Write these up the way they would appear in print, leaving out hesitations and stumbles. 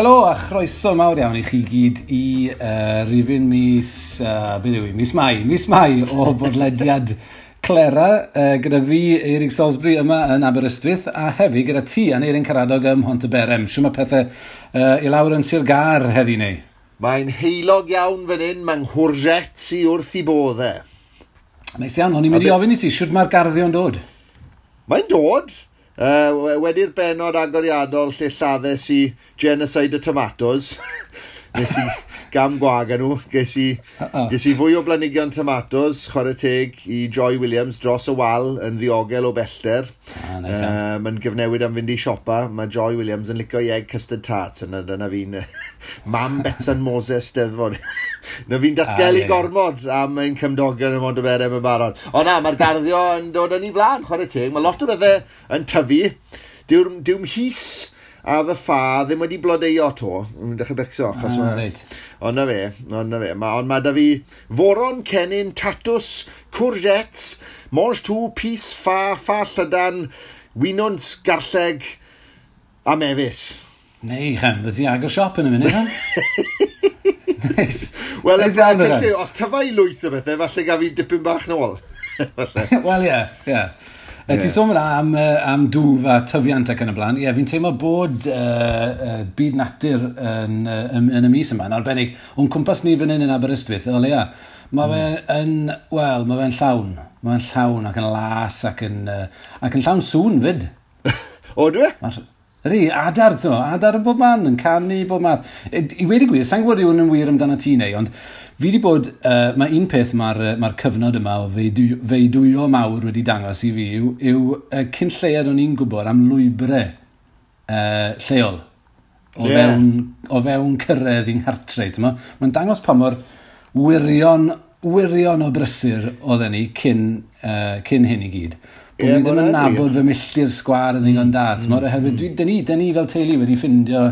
Helo a chroeso mawr iawn i chi gyd i rifyn mis, beth yw i, mis Mai, mis Mai o bodlediad Clera, gyda fi, Eirig Salisbury, yma yn Aberystwyth, a hefyd gyda ti, Aneirin Karadog, ym Mhontyberem. Shwt mae pethau i lawr yn Sir Gâr heddi neu? Mae'n heulog iawn fan hyn, mae'n courgettes i wrth i bodd e. Neis iawn, o'n i'n mynd i ofyn i ti, shwt mae'r garddio'n dod? Mae'n dod. Wedi'r benod agoriadol lle lladdes i genocide o tomatoes, nes i gam gwag â nhw, ges i fwy o blanhigion tomatoes, chwarae teg i Joy Williams dros y wal yn ddiogel o bellter. Ah, nice. Mae'n gyfnewid am fynd i siopa. Mae Joy Williams yn licio i egg custard tarts, yna dyna fi'n mam Betsan Moses Steddfod. Na fi'n datgelu gormod am ein cymdogion ym Mhontyberem yn barod. Ond na, mae'r garddio yn dod yn ei flaen, chwarae teg. Mae lot o bethau yn tyfu. Dyw'r mhys a fy ffa ddim wedi blodeuo to. Yn dechrau becso. Achos Ond na fe, ond na fe. Ond mae da fi foron, cennin, tatws, courgettes, mangetout, pys, ffa, ffa llydan, winwns, garlleg a mefus. Neu, chan, fyddi ti agor siop yn y munud, han? Nice. Wel, os tyfa i lwyth o bethau, falle gaf fi dipyn bach nôl. Wel, ie. Ti'n sôn fyna am dwf a tyfiant ac yn y blaen. Ie, fi'n teimlo bod byd natur yn y mis yma, yn arbennig. O'n cwmpas ni fan hyn yn Aberystwyth, o leia, mae fe yn, wel, mae fe'n llawn. Mae fe'n llawn ac yn las ac yn llawn sŵn fyd. O, dwi? Ydy, adar, ti'n mo, adar yn bob man, yn canu bob math. I weud y gwir, sa'n gwybod yw hwn yn wir amdano ti neu, ond fi wedi bod, mae un peth mae'r cyfnod yma o feudwyo mawr wedi dangos i fi yw cyn lleiad o'n i'n gwybod am lwybrau lleol o fewn cyrraedd i'n nghartre. Mae'n dangos pa mor wirion o brysur oedden ni cyn hyn i gyd. Bod ni ddim yn nabod fy milltir sgwâr yn ddigon da. Oherwydd dyn ni fel teulu wedi ffindio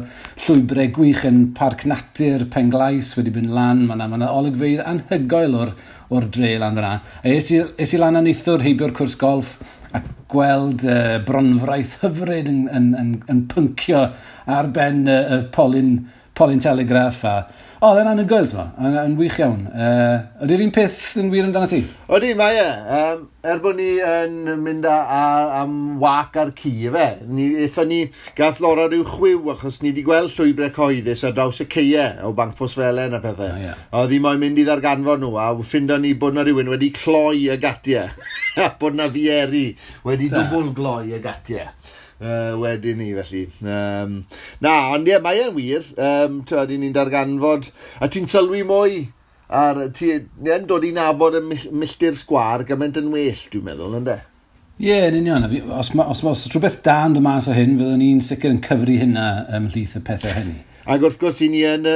llwybrau gwych yn Parc Natur Penglais wedi mynd lan. Mae yna olygfeydd anhygoel o'r dre lan fyna. A es i lan a neithiwr heibio'r cwrs golff a gweld bronfraith hyfryd yn pyncio ar ben y polyn telegraff a... O, oedd e'n anhygoel, ti'n mo, yn wych iawn. Ydy'r un peth yn wir amdano ti? Ydy, mae e. Er bod ni yn mynd am wac ar ci, efe. Aethon ni, gath Laura rhyw chwiw, achos ni wedi gweld llwybrau cyhoeddus ar draws y ceie o Banc Ffosfelen a pethau. Oh, yeah. Oedd hi moyn mynd i ddarganfod nhw, a ffindo ni bod na rhywun wedi cloi y gatiau. A bod na fieri wedi dwbl gloi y gatiau. Wedyn ni, felly. Na, ond ie, mae e'n wir. Ti'n ni'n darganfod, a ti'n sylwi mwy ar, ti'n dod i nabod y milltir sgwâr gymaint yn well, dwi'n meddwl, ynde? Ie, yn union. Os rhywbeth da yn dod mas o hyn, fyddwn ni'n sicr yn cyfri hynna ymhlith y pethau hynny. Ac wrth gwrs, i ni yn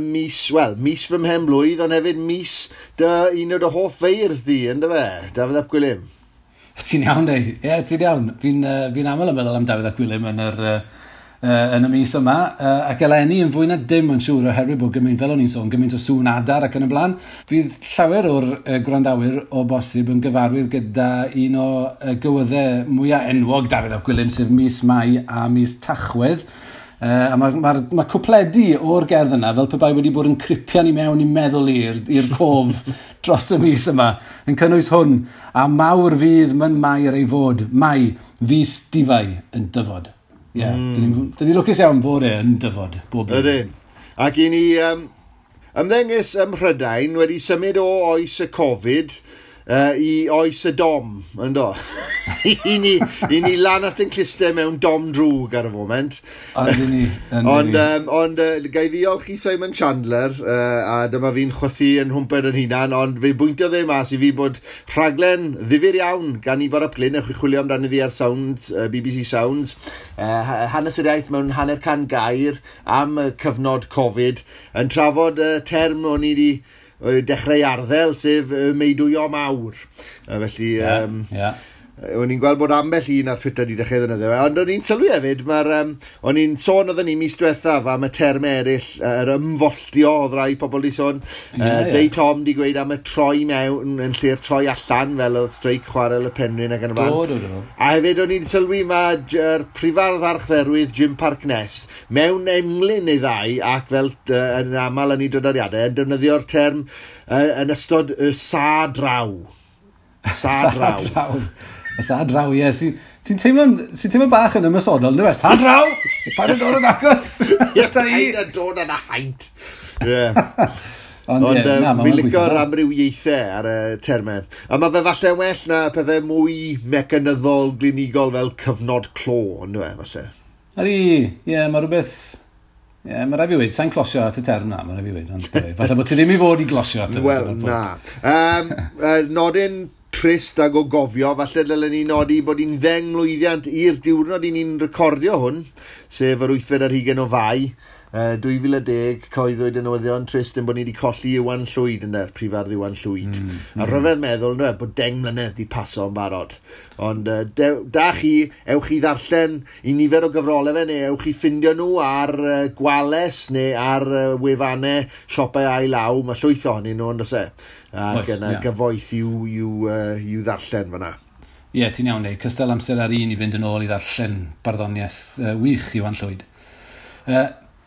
mis, wel, mis fy mhen blwydd, ond hefyd mis dy un o dy hoff feirdd di, ynde fe? Dafydd ap Gwilym. Ti'n iawn, dei. Ie, ti'n iawn. Fi'n aml yn meddwl am Dafydd ap Gwilym yn y mis yma. Ac eleni yn fwy na dim yn siŵr oherwydd bod gymaint, fel o'n i'n sôn, gymaint o sŵn adar ac yn y blaen. Fydd llawer o'r gwrandawyr o bosib yn gyfarwydd gyda un o gywyddau mwyaf enwog Dafydd ap Gwilym, sef mis Mai a mis Tachwedd. A mae cwpledi o'r gerdd yna fel pe bai wedi bod yn cripian i mewn i meddwl i'r cof dros y mis yma, yn cynnwys hwn, a mawr fydd myn Mair ei fod, Mai, fis difai yn dyfod. Ie, yeah, dyn ni lwcus iawn bod e yn dyfod bob blwyddyn. Ydyn. Ac i ni ymddengys ym Mhrydain wedi symud o oes y Covid i oes y dom, yndo? I ni lan at yn clustau mewn dom drwg ar y foment. Ond ni. Ond gai ddiolch i Simon Chandler, a dyma fi'n chwythu yn hwmped yn hunan, ond fe bwyntiodd e mas i fi bod rhaglen ddifyr iawn gan Ifor ap Glyn, ewch i chwilio amdani ddi ar Sounds, BBC Sounds, hanes yr iaith mewn 150 gair am y cyfnod Covid, yn trafod y term o'n i wedi dechrau arddel, sef meudwyo mawr. Felly, O'n i'n gweld bod ambell un ar Twitter wedi dechrau ddefnyddio fe, ond o'n i'n sylwi hefyd, mae'r, o'n i'n sôn oedden ni mis diwethaf am y termau eraill, yr ymfolltio oedd rai pobl di sôn. Dei Tom di gweud am y troi mewn yn lle'r troi allan, fel oedd streic chwarel y Penrhyn ac yn y blaen. Do. A hefyd o'n i'n sylwi mae'r prifardd archdderwydd Jim Parkness mewn englyn neu ddau ac fel yn aml yn ei drodoriadau yn defnyddio'r term yn ystod y sa draw. Sa draw. Sa draw, ie. Sy'n teimlo bach yn ymosodol, ynddo fe? Sa draw! Paid yn dod yn agos! Ie, paid yn dod yn haint. Ie. Ond fi'n licio'r amrywiaethau ar y termau. A mae fe falle'n well na pethau mwy mecanyddol, glinigol fel cyfnod clo, ynddo fe, falle. Ydy, ie, mae rhywbeth... Ie, mae rhaid fi weud, sa'n closio at y term na, mae rhaid fi weud. Ond falle bod ti ddim i fod i glosio at y Wel, na. Nodyn trist ag o gofio, falle dylen ni nodi bod hi'n 10 mlwyddiant i'r diwrnod i ni'n recordio hwn, sef yr 8th ar hugain o Fai, 2010, cyhoeddwyd y newyddion trist yn bod ni wedi colli Iwan Llwyd yn prifardd Iwan Llwyd. A rhyfedd meddwl ynddo, bod 10 mlynedd wedi paso yn barod. Ond da chi, ewch chi ddarllen i nifer o gyfrolau fe, neu ewch chi ffindio nhw ar Gwales neu ar wefannau siopau ail law. Mae llwyth ohonyn nhw, on'd oes e? Ac yna gyfoeth i'w ddarllen fyna. Ie, ti'n iawn, neu. Cystal amser ar un i fynd yn ôl i ddarllen barddoniaeth wych Iwan Llwyd.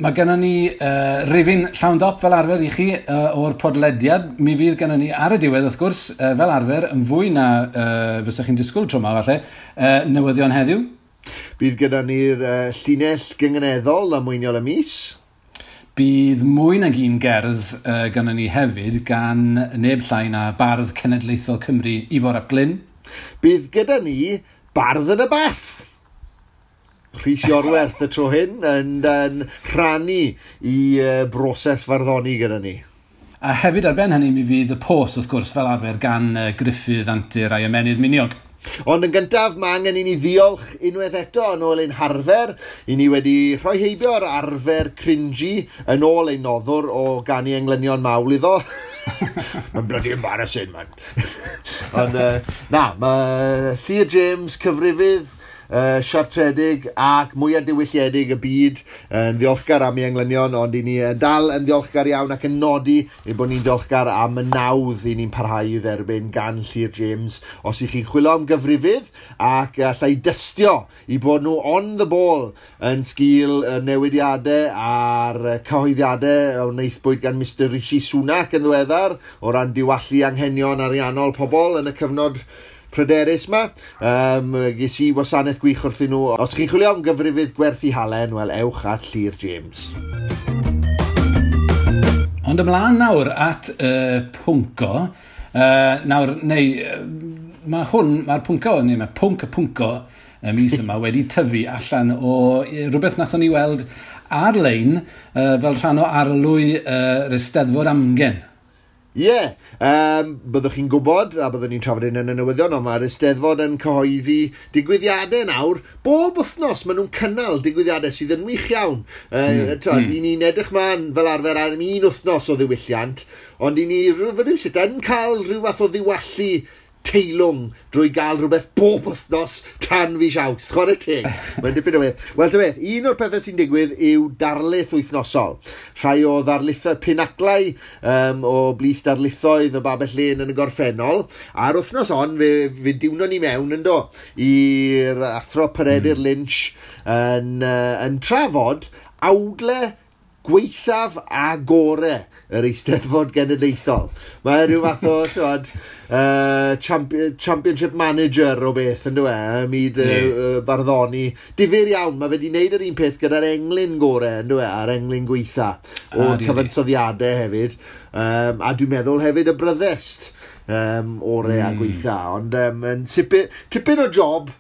Mae gennym ni rifyn llawn dop fel arfer i chi o'r podlediad. Mi fydd gennym ni ar y diwedd, wrth gwrs, fel arfer, yn fwy na fysech chi'n disgwyl tro yma, falle, newyddion heddiw. Bydd gyda ni'r llinell gynganeddol a mwyniol y mis. Bydd mwy nag un gerdd gennym ni hefyd gan neb llai na Bardd Cenedlaethol Cymru, Ifor ap Glyn. Bydd gyda ni Bardd yn y Bath. Rhys Iorwerth y tro hyn yn rhannu i broses farddoni gyda ni. A hefyd ar ben hynny mi fydd y pos, wrth gwrs, fel arfer gan Gruffydd Antur a'i ymennydd miniog. Ond yn gyntaf, mae angen i ni ddiolch unwaith eto yn ôl ein harfer. I ni wedi rhoi heibio'r arfer cringy yn ôl ein noddwr o ganu englynion mawl iddo. Mae'n bloody embarrassing, man. Ond na, mae Llyr James, cyfrifydd, siartredig ac mwyaf diwylliedig y byd yn ddiolchgar am ei englynion, ond i ni dal yn ddiolchgar iawn ac yn nodi ein bod ni'n ddiolchgar am y nawdd i ni'n parhau i dderbyn gan Llyr James. Os ych chi'n chwilio am gyfrifydd ac allai dystio i bod nhw on the ball yn sgil newidiadau a'r cyhoeddiadau o wnaethpwyd gan Mr Rishi Sunak yn ddiweddar o ran diwallu anghenion ariannol pobl yn y cyfnod pryderus ma. Ges i wasanaeth gwych wrthyn nhw. Os chi'n chwilio am gyfrifydd gwerthu halen, wel, ewch at Llyr James. Ond ymlaen nawr at pwnco. Nawr, neu, mae hwn, mae'r pwnco, neu mae pwnc y pwnco y mis yma wedi tyfu allan o rhywbeth nathon ni weld ar-lein fel rhan o arlwy yr Eisteddfod Amgen. Ie, byddwch chi'n gwybod, a byddwn ni'n trafod hyn yn y newyddion, ond mae'r Eisteddfod yn cyhoeddi digwyddiadau nawr. Bob wythnos maen nhw'n cynnal digwyddiadau sydd yn wych iawn. I ni'n edrych mlaen fel arfer am un wythnos o ddiwylliant, ond i ni rhywsut yn cael rhyw fath o ddiwallu teilwng drwy gael rhywbeth bob wythnos tan fis Awst. Chwarae teg. Mae'n dipyn o beth. Wel, ta beth, un o'r pethau sy'n digwydd yw darlith wythnosol. Rhai o ddarlithoedd pinaclau o blith darlithoedd y Babell Lên yn y gorffennol. A'r wythnos hon, fe diwnon ni mewn yndo i'r athro Peredur Lynch yn trafod awdle gweithaf a gore yr Eisteddfod Genedlaethol. Mae rhyw fath o, t'wod, championship manager o beth, ynddo e, ym myd barddoni. Difyr iawn, mae fe wedi wneud yr un peth gyda'r englyn gore, ynddo e, a'r englyn gweitha o'r cyfansoddiadau hefyd. A dwi'n meddwl hefyd y bryddest ore a gweitha. Ond yn tipyn o job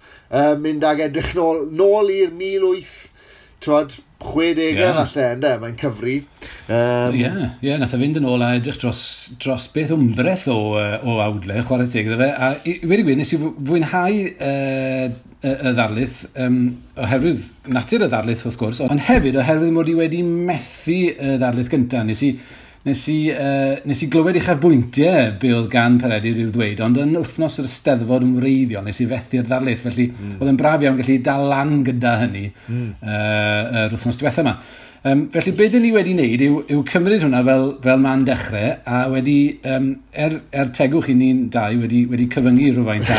mynd ag edrych nôl i'r 1860 falle, ynde, mae'n cyfri. Ie, nath e fynd yn ôl a edrych dros beth wmbreth o awdle, chwarae teg iddo fe. A i wedi gweud, nes i fwynhau y ddarlith, oherwydd natur y ddarlith wrth gwrs, ond hefyd oherwydd mod i wedi methu y ddarlith gyntaf. Nes i Nes i glywed uchafbwyntiau be oedd gan Peredur i'w ddweud, ond yn wythnos yr Eisteddfod yn wreiddiol, nes i fethu'r ddarlith, felly oedd yn braf iawn gallu dal lan gyda hynny yr wythnos diwetha yma. Felly be dyn ni wedi wneud yw cymryd hwnna fel man dechrau, a wedi, er tegwch i ni'n dau, wedi cyfyngu rhywfaint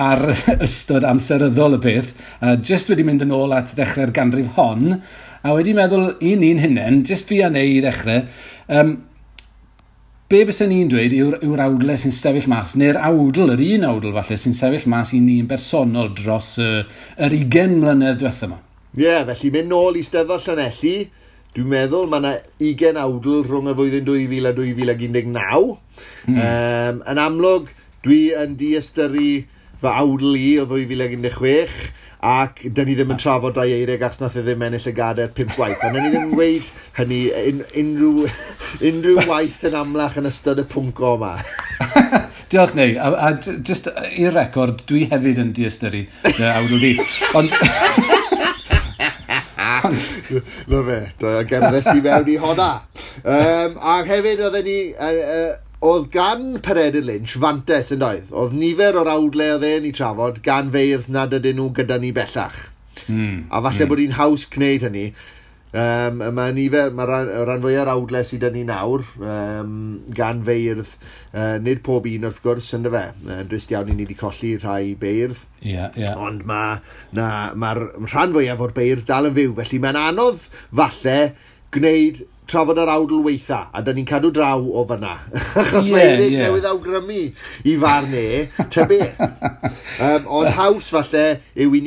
ar ystod amseryddol y peth, just wedi mynd yn ôl at ddechrau'r ganrif hon, a wedi meddwl i ni'n hunain, just fi a neu i ddechrau, be fysen ni'n dweud yw'r awdle sy'n sefyll mas, neu'r awdl, yr un awdl falle, sy'n sefyll mas i ni'n bersonol dros yr 20 mlynedd diwetha yma. Ie, yeah, felly mynd nôl i Steddfod Llanelli, dwi'n meddwl mae yna 20 awdl rhwng y flwyddyn 2000 a 2019. Yn amlwg, dwi yn diystyru fy awdl i o 2016, ac dyn ni ddim yn trafod Dai Eirig achos nath e ddim ennill y gadair 5 gwaith. Ond ni ddim yn gweud hynny unrhyw waith yn amlach yn ystod y pwnc yma. Diolch, Neu. A just i'r record, dwi hefyd yn diystyru dy awdl di. Ond... Na fe, gerddes i mewn i honna. A hefyd oedden ni... Oedd gan Peredur Lynch fantes yn doedd. Oedd nifer o'r awdle oedd e'n ei trafod gan feirdd nad ydyn nhw gyda ni bellach. A falle bod hi'n haws gwneud hynny. Mae nifer, mae rhan fwyaf o'r awdle sydd 'da ni nawr gan feirdd, nid pob un wrth gwrs, ynddo fe. Drist iawn i ni wedi colli rhai beirdd. Yeah, yeah. Ond mae'r rhan fwyaf o'r beirdd dal yn fyw. Felly mae'n anodd falle gwneud trafod yr awdl weitha, a da ni'n cadw draw o fyna. Achos mae Eirig newydd awgrymu i farn e, ta beth. Ond haws falle yw i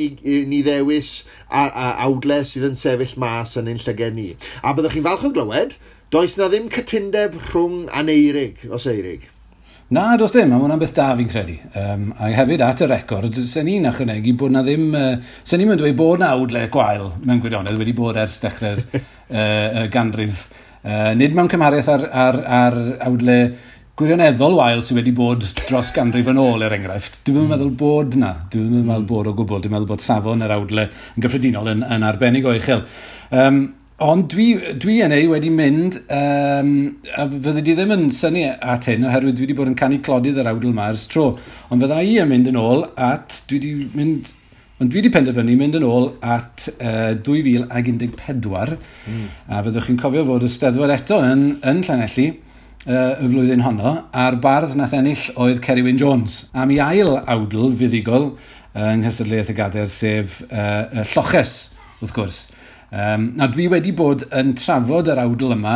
ni ddewis awdle sydd yn sefyll mas yn ein llyged ni. A byddwch chi'n falch o glywed, does na ddim cytundeb rhwng Aneirig, os Eirig. Na, does dim, a ma' hwnna'n beth da fi'n credu. A hefyd at y record, sen ni'n ychwanegu bod na ddim... sen ni'n dweud bod na awdle gwael mewn gwirionedd wedi bod ers dechrau'r ganrif. Nid mewn cymhariaeth ar awdle gwirioneddol wael sydd wedi bod dros ganrif yn ôl, er enghraifft. Dwi'm yn meddwl bod na. Dwi'm yn meddwl bod o gwbl. Dwi'n meddwl bod safon yr awdle yn gyffredinol yn arbennig o uchel. Ond dwi yn ei wedi mynd, a fydde di ddim yn synnu at hyn, oherwydd dwi wedi bod yn canu clodydd yr awdl yma ers tro. Ond fydda i yn mynd yn ôl at, dwi wedi penderfynu mynd yn ôl at 2014, a fyddwch chi'n cofio fod y Steddfod eto yn Llanelli y flwyddyn honno, a'r bardd nath ennill oedd Ceri Wyn Jones, am ei ail awdl fuddugol yng nghystadleuaeth y gadair, sef Lloches, wrth gwrs. Na, dwi wedi bod yn trafod yr awdl yma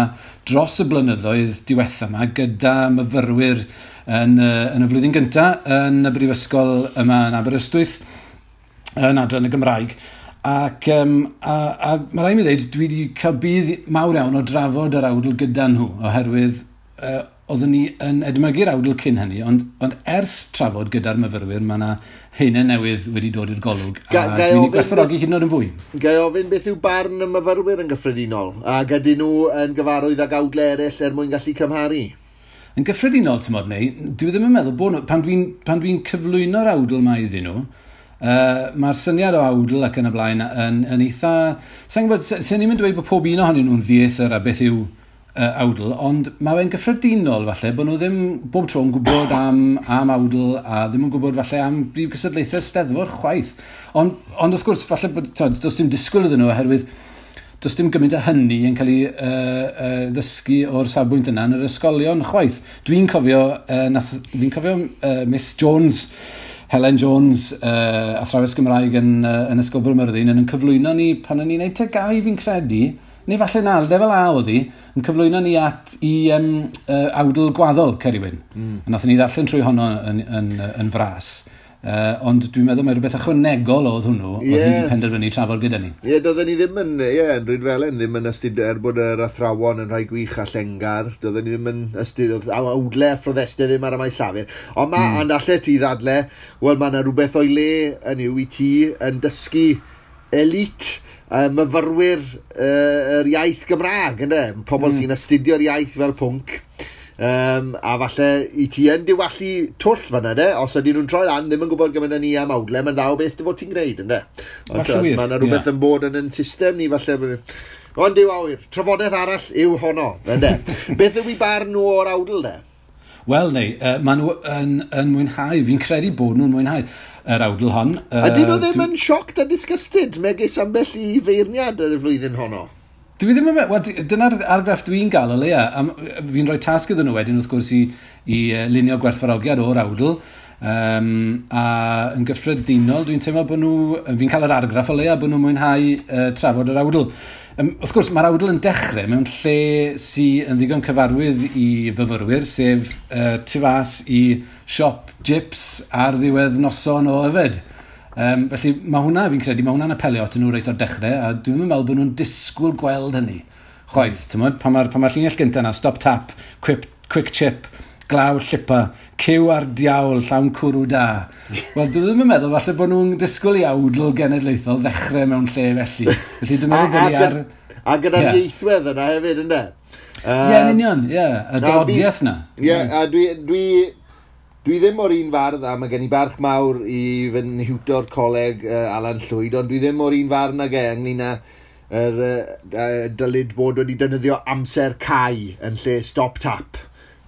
dros y blynyddoedd diwetha yma gyda myfyrwyr yn y flwyddyn gyntaf yn y brifysgol yma yn Aberystwyth, yn adran y Gymraeg. Ac a mae rhaid mi ddweud, dwi wedi cael budd mawr iawn o drafod yr awdl gyda nhw, oherwydd oeddwn ni yn edmygu'r awdl cyn hynny, ond ers trafod gyda'r myfyrwyr, mae yna haenau newydd wedi dod i'r golwg, a dwi'n gwerthfawrogi hyd yn oed yn fwy. Ga i ofyn beth yw barn y myfyrwyr yn gyffredinol, ac ydyn nhw yn gyfarwydd ag awdle eraill er mwyn gallu cymharu? Yn gyffredinol, tymod neu, dwi ddim yn meddwl bod nhw, pan dwi'n cyflwyno'r awdl yma iddyn nhw, mae'r syniad o awdl ac yn y blaen yn eitha... Sa'n gwybod, sen ni'n dweud bod pob un ohonyn nhw'n ddieithr a beth yw awdl, ond mae fe'n gyffredinol falle bod nhw ddim bob tro yn gwybod am awdl a ddim yn gwybod falle am brif gystadlaethau'r Steddfod chwaith. Ond wrth gwrs, falle bod, does dim disgwyl iddyn nhw oherwydd does dim gymaint o hynny yn cael ei ddysgu o'r safbwynt yna yn yr ysgolion chwaith. Dwi'n cofio, Miss Jones, Helen Jones, athrawes Gymraeg yn Ysgol Bro Myrddin, yn cyflwyno ni pan o'n i'n neud TGAU fi'n credu, neu falle na, lefel A oedd hi, yn cyflwyno ni at i awdl gwaddol Ceri Wyn. A nathon ni ddarllen trwy honno yn fras. Ond dwi'n meddwl mai rhywbeth ychwanegol oedd hwnnw, oedd hi wedi penderfynu trafod gyda ni. Ie, doedden ni ddim yn, yn Rhydfelen, ddim yn astudio, er bod yr athrawon yn rhai gwych a llengar, doedden ni ddim yn astudio, awdle a phroddestau ddim ar y maes llafur. Ond ma, ond allet ti ddadle, wel, mae yna rhywbeth o'i le yn yw i ti yn dysgu elite myfyrwyr yr iaith Gymraeg, ynde? Pobl sy'n astudio'r iaith fel pwnc. A falle i ti yn diwallu twll fan'na, de? Os ydyn nhw'n troi lan, ddim yn gwybod gymaint â ni am awdle, mae'n dda o beth dy fod ti'n gwneud, ynde? Ond mae yna rhywbeth yn bod yn ein system ni, falle. Ond yw awyr, trafodaeth arall yw honno, ynde. Beth yw i barn nhw o'r awdl, de? Wel, neu, maen nhw yn mwynhau, fi'n credu bod nhw'n mwynhau yr awdl hon. Ydyn nhw ddim yn shocked a disgusted, megis ambell i feirniad ar y flwyddyn honno? Dwi ddim yn meddwl, wel, dyna'r argraff dwi'n gael o leia. Fi'n rhoi tasg iddyn nhw wedyn, wrth gwrs, i lunio gwerthfawrogiad o'r awdl. A yn gyffredinol, dwi'n teimlo bod nhw, fi'n cael yr argraff o leia bod nhw'n mwynhau trafod yr awdl. Wrth gwrs, mae'r awdl yn dechrau mewn lle sy'n yn ddigon cyfarwydd i fyfyrwyr, sef tu fas i siop Jips ar ddiwedd noson o yfed. Felly mae hwnna, fi'n credu, mae hwnna'n apelio atyn nhw reit o'r dechrau, a dwi'n meddwl bod nhw'n disgwyl gweld hynny. Chwaith, ti'n pan mae'r pan ma llinell gyntaf yna, stop tap, quick chip, glaw llipa, cyw ar diawl, llawn cwrw da. Wel, dwi ddim yn meddwl falle bod nhw'n disgwyl i awdl genedlaethol ddechrau mewn lle felly. Felly dwi'n meddwl bod ni ar... A gyda'r ieithwedd yna hefyd, ynddo? Ie, yn union, ie. Y dodiaeth na. Ie, a dwi ddim o'r un fardd, a mae gen i barch mawr i fy nhiwtor coleg Alan Llwyd, ond dwi ddim o'r un fardd nag e ynglyn â dylid bod wedi defnyddio amser cau yn lle stop tap.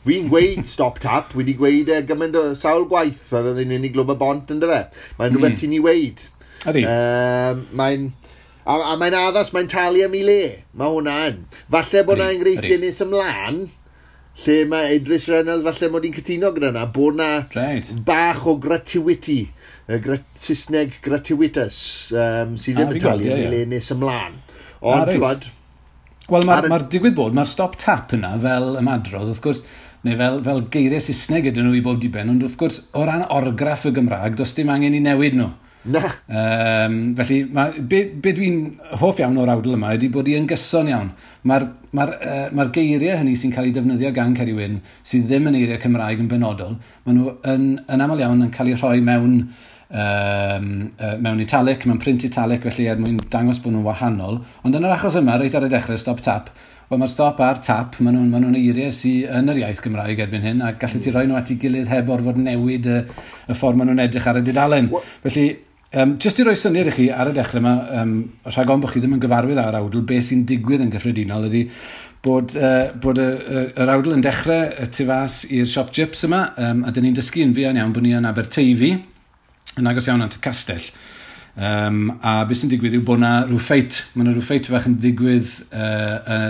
Fi'n gweud stop tap, wedi gweud e gymaint o sawl gwaith pan oedd hi'n mynd i Glwb y Bont, ynddo fe? Mae'n rhywbeth ti'n ei weud. Ydy. A mae'n addas, mae'n talu am ei le. Mae hwnna yn. Falle bod yna enghreifftiau nes ymlaen, lle mae Idris Reynolds, falle mod i'n cytuno gyda yna, bod yna bach o gratuity, Saesneg gratuitous, sydd ddim yn talu am ei le nes ymlaen. Ond, ti'n gwybod... Wel, mae'r digwydd bod, mae'r stop tap yna fel ymadrodd, wrth gwrs, neu fel geiriau Saesneg ydyn nhw i bob diben, ond wrth gwrs, o ran orgraff y Gymraeg, does dim angen i newid nhw. Na. Felly, be dwi'n hoff iawn o'r awdl yma ydy bod hi yn gyson iawn. Mae'r geiriau hynny sy'n cael eu defnyddio gan Ceri Wyn, sydd ddim yn eiriau Cymraeg yn benodol, maen nhw yn aml iawn yn cael eu rhoi mewn italic, mewn print italic, felly er mwyn dangos bod nhw'n wahanol. Ond yn yr achos yma, reit ar y dechrau, stop tap, wel mae'r stop a'r tap, maen nhw'n eiriau sydd yn yr iaith Gymraeg erbyn hyn, a gallu ti roi nhw at ei gilydd heb orfod newid y ffordd maen nhw'n edrych ar y dudalen. Felly, jyst i roi syniad i chi ar y dechrau yma, rhag ofn bod chi ddim yn gyfarwydd â'r awdl, beth sy'n digwydd yn gyffredinol ydy bod yr awdl yn dechrau y tu fas i'r siop Jips yma, a dyn ni'n dysgu yn fuan iawn bod ni yn Aberteifi, yn agos iawn at y castell. A beth sy'n digwydd yw bod yna rhyw ffeit, mae yna rhyw ffeit fach yn digwydd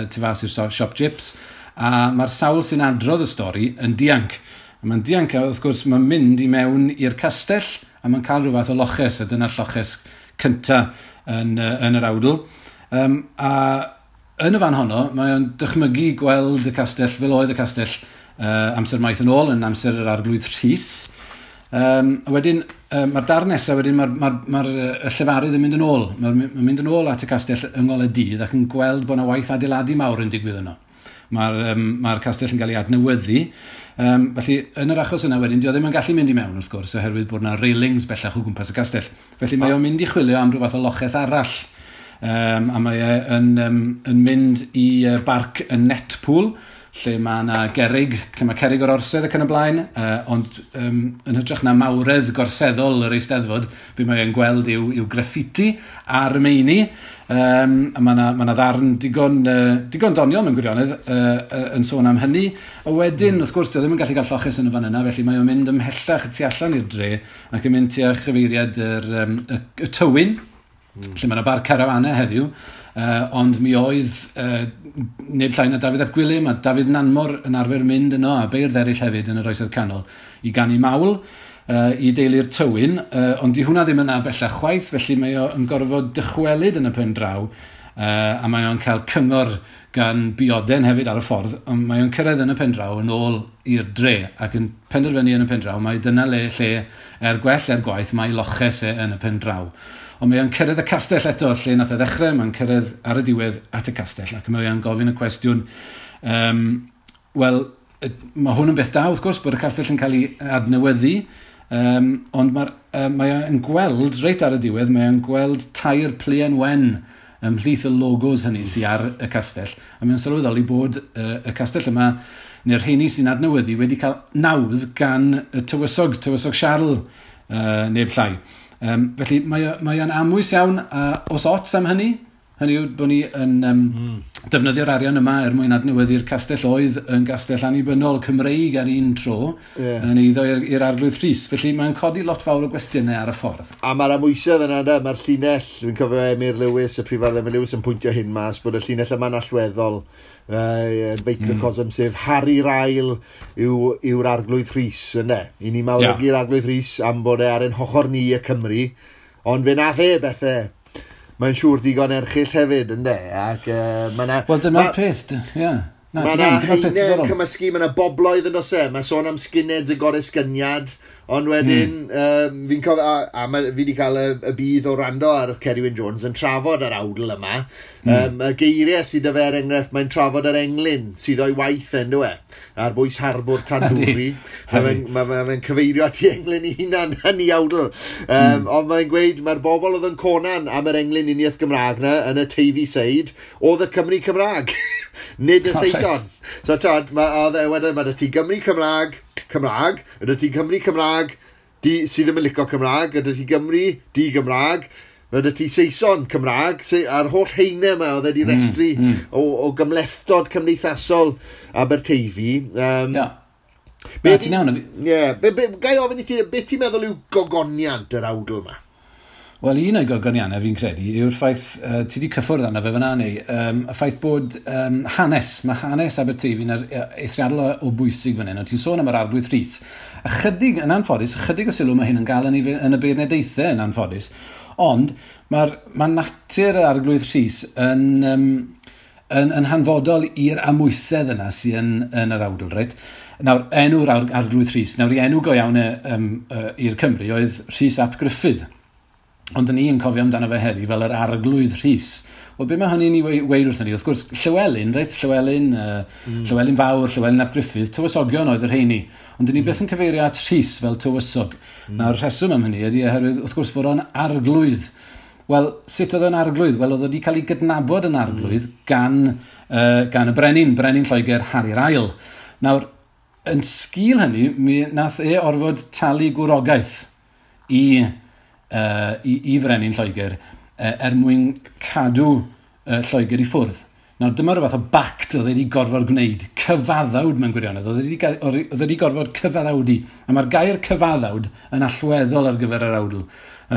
tu fas i'r siop Jips, a mae'r sawl sy'n adrodd y stori yn dianc. A mae'n dianc, a wrth gwrs, mae'n mynd i mewn i'r castell, a mae'n cael rhyw fath o loches, a dyna'r lloches cynta yn yr awdl. A yn y fan honno, mae o'n dychmygu gweld y castell fel oedd y castell amser maith yn ôl, yn amser yr Arglwydd Rhys. A wedyn, mae'r darn nesaf, wedyn mae'r llefarydd yn mynd yn ôl. Mae'n mynd yn ôl at y castell yng ngolau dydd ac yn gweld bod yna waith adeiladu mawr yn digwydd yno. Mae'r castell yn cael ei adnewyddu. Felly, yn yr achos yna wedyn, dio ddim yn gallu mynd i mewn, wrth gwrs, oherwydd bod yna railings bellach o gwmpas y castell. Felly mae o'n mynd i chwilio am rhyw fath o loches arall. A mae e yn mynd i barc y Netpool, lle mae yna gerrig, lle mae cerrig o'r orsedd ac yn y blaen, ond yn hytrach na mawredd gorseddol yr Eisteddfod, be mae e'n gweld yw graffiti ar y meini, a mae yna ddarn digon doniol mewn gwirionedd yn sôn am hynny. A wedyn, wrth gwrs, dio ddim yn gallu cael lloches yn y fan yna, felly mae o'n mynd ymhellach tu allan i'r dre ac yn mynd tua chyfeiriad y Tywyn, lle mae yna bar carafanau heddiw, ond mi oedd neb llai na Dafydd ap Gwilym a Dafydd Nanmor yn arfer mynd yno, a beirdd eraill hefyd yn yr Oesoedd Canol, i ganu mawl i deulu'r Tywyn, ond di hwnna ddim yna bellach chwaith, felly mae o'n gorfod dychwelyd yn y pen draw, a mae o'n cael cyngor gan Bioden hefyd ar y ffordd, ond mae o'n cyrraedd yn y pen draw yn ôl i'r dre, ac yn penderfynu yn y pen draw, mae dyna le lle er gwell er gwaith mae loches e yn y pen draw. Ond mae o'n cyrraedd y castell eto, lle nath e ddechrau, mae'n cyrraedd ar y diwedd at y castell, ac mae o'n gofyn y cwestiwn, wel, mae hwn yn beth da, wrth gwrs, bod y castell yn cael ei adnewyddu, ond mae o'n gweld, reit ar y diwedd, mae o'n gweld tair pluen wen ymhlith y logos hynny sydd ar y castell, a mae o'n sylweddoli bod y castell yma, neu'r rheini sy'n adnewyddu, wedi cael nawdd gan y tywysog Siarl, neb llai. Felly mae o'n amwys iawn, os ots am hynny, Hynny yw bod ni yn defnyddio'r arian yma er mwyn adnewyddu'r castell oedd yn gastell annibynnol Cymreig ar un tro, yn eiddo i'r Arglwydd Rhys. Felly mae'n codi lot fawr o gwestiynau ar y ffordd. A mae'r amwysedd yna, da, mae'r llinell, dwi'n cofio Emyr Lewis, y prifardd Emyr Lewis yn pwyntio hyn mas, bod y llinell yma'n allweddol yn feicrocosm, sef Harri'r Ail yw'r Arglwydd Rhys, yna. I ni mawrygu'r Arglwydd Rhys am bod e ar ein hochor ni y Cymru, ond fe nath e bethau mae'n siŵr digon erchyll hefyd, ynddo? Ac mae 'na Wel, dyma'r peth, ie. Mae 'na haenau cymysgu, mae 'na bobloedd yn does e, mae sôn am skinheads y goresgyniad, ond wedyn, fi'n cofio, a fi wedi cael y budd o rando ar Ceri Wyn Jones yn trafod yr awdl yma, y geiriau sydd 'da fe er enghraifft, mae'n trafod yr englyn sydd o'i waith yn dwi, ar bwys harbwr Tandwri. Mae fe'n cyfeirio at ei englyn ei hunan yn ei awdl. Ond mae'n gweud, mae'r bobl oedd yn conan am yr englyn uniaith Gymraeg na, yn y Teifi Seid, oedd y Cymry Cymraeg, nid y Saeson. So, tod, wedyn mae ti Gymry Cymraeg, ydy ti Cymry Cymraeg sydd ddim yn licio Cymraeg, ydy ti Gymru di-Gymraeg, ydy ti Saeson Cymraeg, a'r holl heine yma oedd wedi restru o gymhlethdod cymdeithasol Aberteifi. Ti'n iawn? Ie. Gai ofyn i ti, beth ti'n meddwl yw gogoniant yr awdl yma? Wel, un o'i gogoniannau fi'n credu yw'r ffaith, ti wedi cyffwrdd arno fe fyna neu, y ffaith bod hanes, mae hanes Aberteifi'n eithriadol o bwysig fan hyn, ond ti'n sôn am yr Arglwydd Rhys. Ychydig, yn anffodus, ychydig o sylw mae hyn yn gael yn y beirniadaethau yn anffodus, ond mae natur yr Arglwydd Rhys yn hanfodol i'r amwysedd yna sy'n yn yr awdl, reit? Nawr, enw'r Arglwydd Rhys, nawr i enw go iawn i'r Cymru oedd Rhys ap Gruffydd. Ond ni yn cofio amdano fe heddi fel yr Arglwydd Rhys. Wel, be mae hynny'n ei weud wrthyn ni? Wrth gwrs, Llywelyn, reit? Llywelyn, Llywelyn Fawr, Llywelyn ap Gruffydd, tywysogion oedd y rheini. Ond dyn ni byth yn cyfeirio at Rhys fel tywysog. Nawr, rheswm am hynny ydy oherwydd, wrth gwrs, fod o'n arglwydd. Wel, sut oedd o'n arglwydd? Wel, oedd o wedi cael ei gydnabod yn arglwydd gan y brenin, brenin Lloegr Harri'r Ail. Nawr, yn sgil hynny, mi nath e orfod talu gwrogaeth i frenin Lloegr er mwyn cadw Lloegr i ffwrdd. Nawr, dyma rhyw fath o bact oedd wedi gorfod gwneud, cyfaddawd mewn gwirionedd, oedd wedi gorfod cyfaddawdu. A mae'r gair cyfaddawd yn allweddol ar gyfer yr awdl,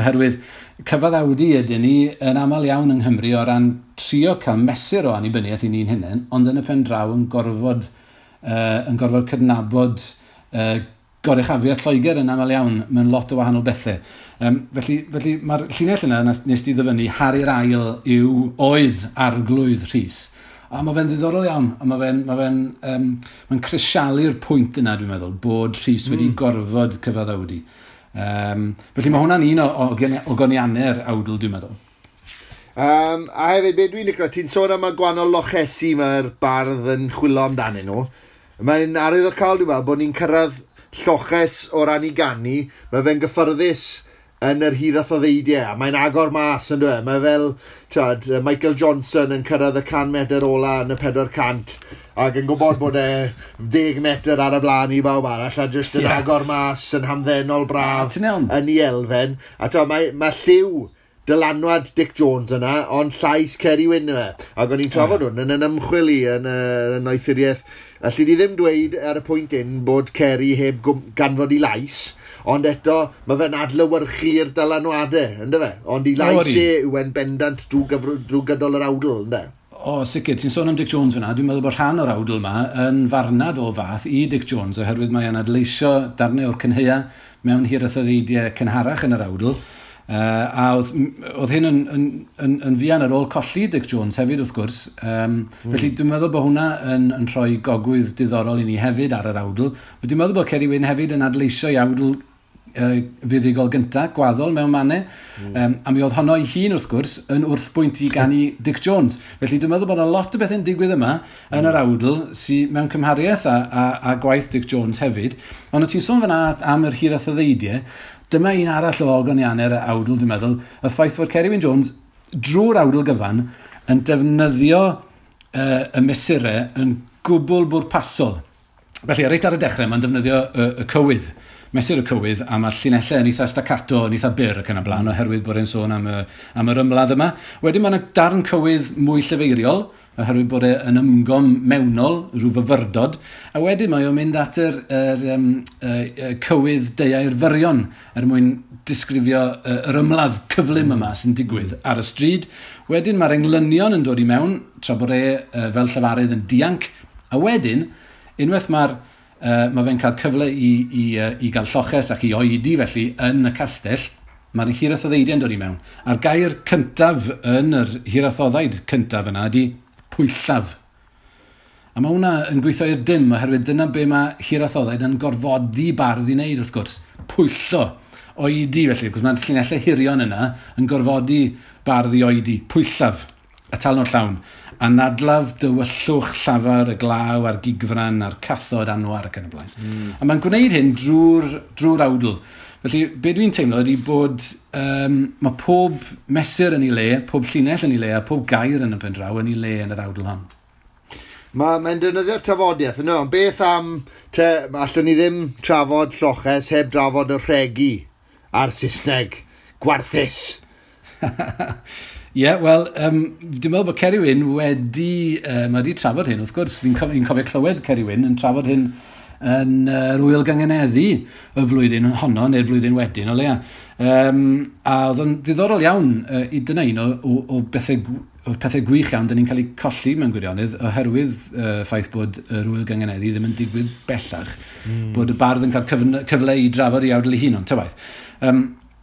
oherwydd cyfaddawdu ydyn ni yn aml iawn yng Nghymru o ran trio cael mesur o annibyniaeth i ni'n hunain, ond yn y pen draw yn gorfod cydnabod goruchafiaeth Lloegr yn aml iawn mewn lot o wahanol bethau. Felly mae'r llinell yna nes ti ddyfynnu, Harri'r Ail yw oedd Arglwydd Rhys. A mae fe'n ddiddorol iawn, a mae'n crisialu'r pwynt yna, dwi'n meddwl, bod Rhys wedi gorfod cyfaddawdu. Felly mae hwnna'n un o goniannau'r awdl, dwi'n meddwl. A hefyd, be dwi'n licio, ti'n sôn am y gwahanol lochesi mae'r bardd yn chwilio amdanyn nhw. Mae'n arwyddocaol, dwi'n meddwl, bod ni'n cyrraedd lloches o ran i ganu, mae fe'n gyffyrddus yn yr hiraeth o ddeidiau, a mae'n agor mas yn dweud. Mae fel, ti'od, Michael Johnson yn cyrraedd y 100 metr ola yn y 400 ac yn gwybod bod e 10 metr ar y blaen i bawb arall, a jyst yn agor mas yn hamddenol braf yn ei elfen. A ti'od, mae lliw dylanwad Dic Jones yna, ond llais Ceri Wyn yma. Ac o'n i'n trafod hwn yn ymchwil i yn y noethuriaeth. Alli di ddim dweud ar y pwynt un bod Ceri heb ganfod ei lais, ond eto mae fe'n adlewyrchu'r dylanwadau, ynddo fe? Ond ei lais e yw e'n bendant drwy gydol yr awdl, ynddo? O, sicr, ti'n sôn am Dic Jones fyna. Dwi'n meddwl bod rhan o'r awdl yma yn farnad o fath i Dic Jones, oherwydd mae e'n adleisio darnau o'r cynhaea mewn hiraeth o ddeidiau cynharach yn yr awdl. A oedd hyn yn fuan ar ôl colli Dic Jones hefyd, wrth gwrs. Felly dwi'n meddwl bod hwnna yn rhoi gogwydd diddorol i ni hefyd ar yr awdl. Dwi'n meddwl bod Ceri Wyn hefyd yn adleisio i awdl fuddugol gyntaf, gwaddol mewn mannau. A mi oedd honno ei hun, wrth gwrs, yn wrthbwynt i ganu Dic Jones. Felly dwi'n meddwl bod yna lot o bethau'n digwydd yma yn yr awdl sydd mewn cymhariaeth a gwaith Dic Jones hefyd. Ond o ti'n sôn fan'na am yr hiraeth o ddeidiau, dyma un arall o ogoniannau'r awdl, dwi'n meddwl, y ffaith fod Ceri Wyn Jones drwy'r awdl gyfan yn defnyddio y mesurau yn gwbl bwrpasol. Felly, reit ar y dechrau, mae'n defnyddio y cywydd, mesur y cywydd, a mae'r llinellau yn eitha staccato, yn eitha byr ac yn y blaen, oherwydd bod e'n sôn am yr ymladd yma. Wedyn mae'n darn cywydd mwy llyfeiriol, oherwydd bod e yn ymgom mewnol, rhyw fyfyrdod, a wedyn mae o'n mynd at yr cywydd deuair fyrion er mwyn disgrifio yr ymladd cyflym yma sy'n digwydd ar y stryd. Wedyn mae'r englynion yn dod i mewn, tra bod e fel llefarydd yn dianc, a wedyn, unwaith mae fe'n cael cyfle i gael lloches ac i oedi felly yn y castell, mae'r hirathoddeidiau'n dod i mewn. A'r gair cyntaf yn yr hirathoddaid cyntaf yna ydy pwyllaf. A mae hwnna yn gweithio i'r dim, oherwydd dyna be mae hirathoddaid yn gorfodi bardd i wneud, wrth gwrs. Pwyllo, oedi felly, cos mae'r llinellau hirion yna yn gorfodi bardd i oedi. Pwyllaf, atalnod llawn. Anadlaf dywyllwch llafar y glaw a'r gigfran a'r cathod anwar ac yn y blaen. A mae'n gwneud hyn drwy'r awdl. Felly, be dwi'n teimlo ydy bod mae pob mesur yn ei le, pob llinell yn ei le, a pob gair yn y pen draw yn ei le yn yr awdl hon. Mae'n defnyddio'r tafodiaeth, yno, ond beth am, allwn ni ddim trafod lloches heb drafod y rhegi a'r Saesneg gwarthus. Ie, yeah, wel, dwi'n meddwl bod Ceri Wyn wedi, mae wedi trafod hyn, wrth gwrs. Fi'n cofio clywed Ceri Wyn yn trafod hyn yn yr Ŵyl Gynganeddu y flwyddyn honno, neu'r flwyddyn wedyn, o leia. A oedd o'n ddiddorol iawn, i dyna un o bethau gwych iawn dyn ni'n cael eu colli mewn gwirionedd, oherwydd ffaith bod yr Ŵyl Gynganeddu ddim yn digwydd bellach, bod y bardd yn cael cyfle i drafod ei awdl ei hun, ond ta waeth.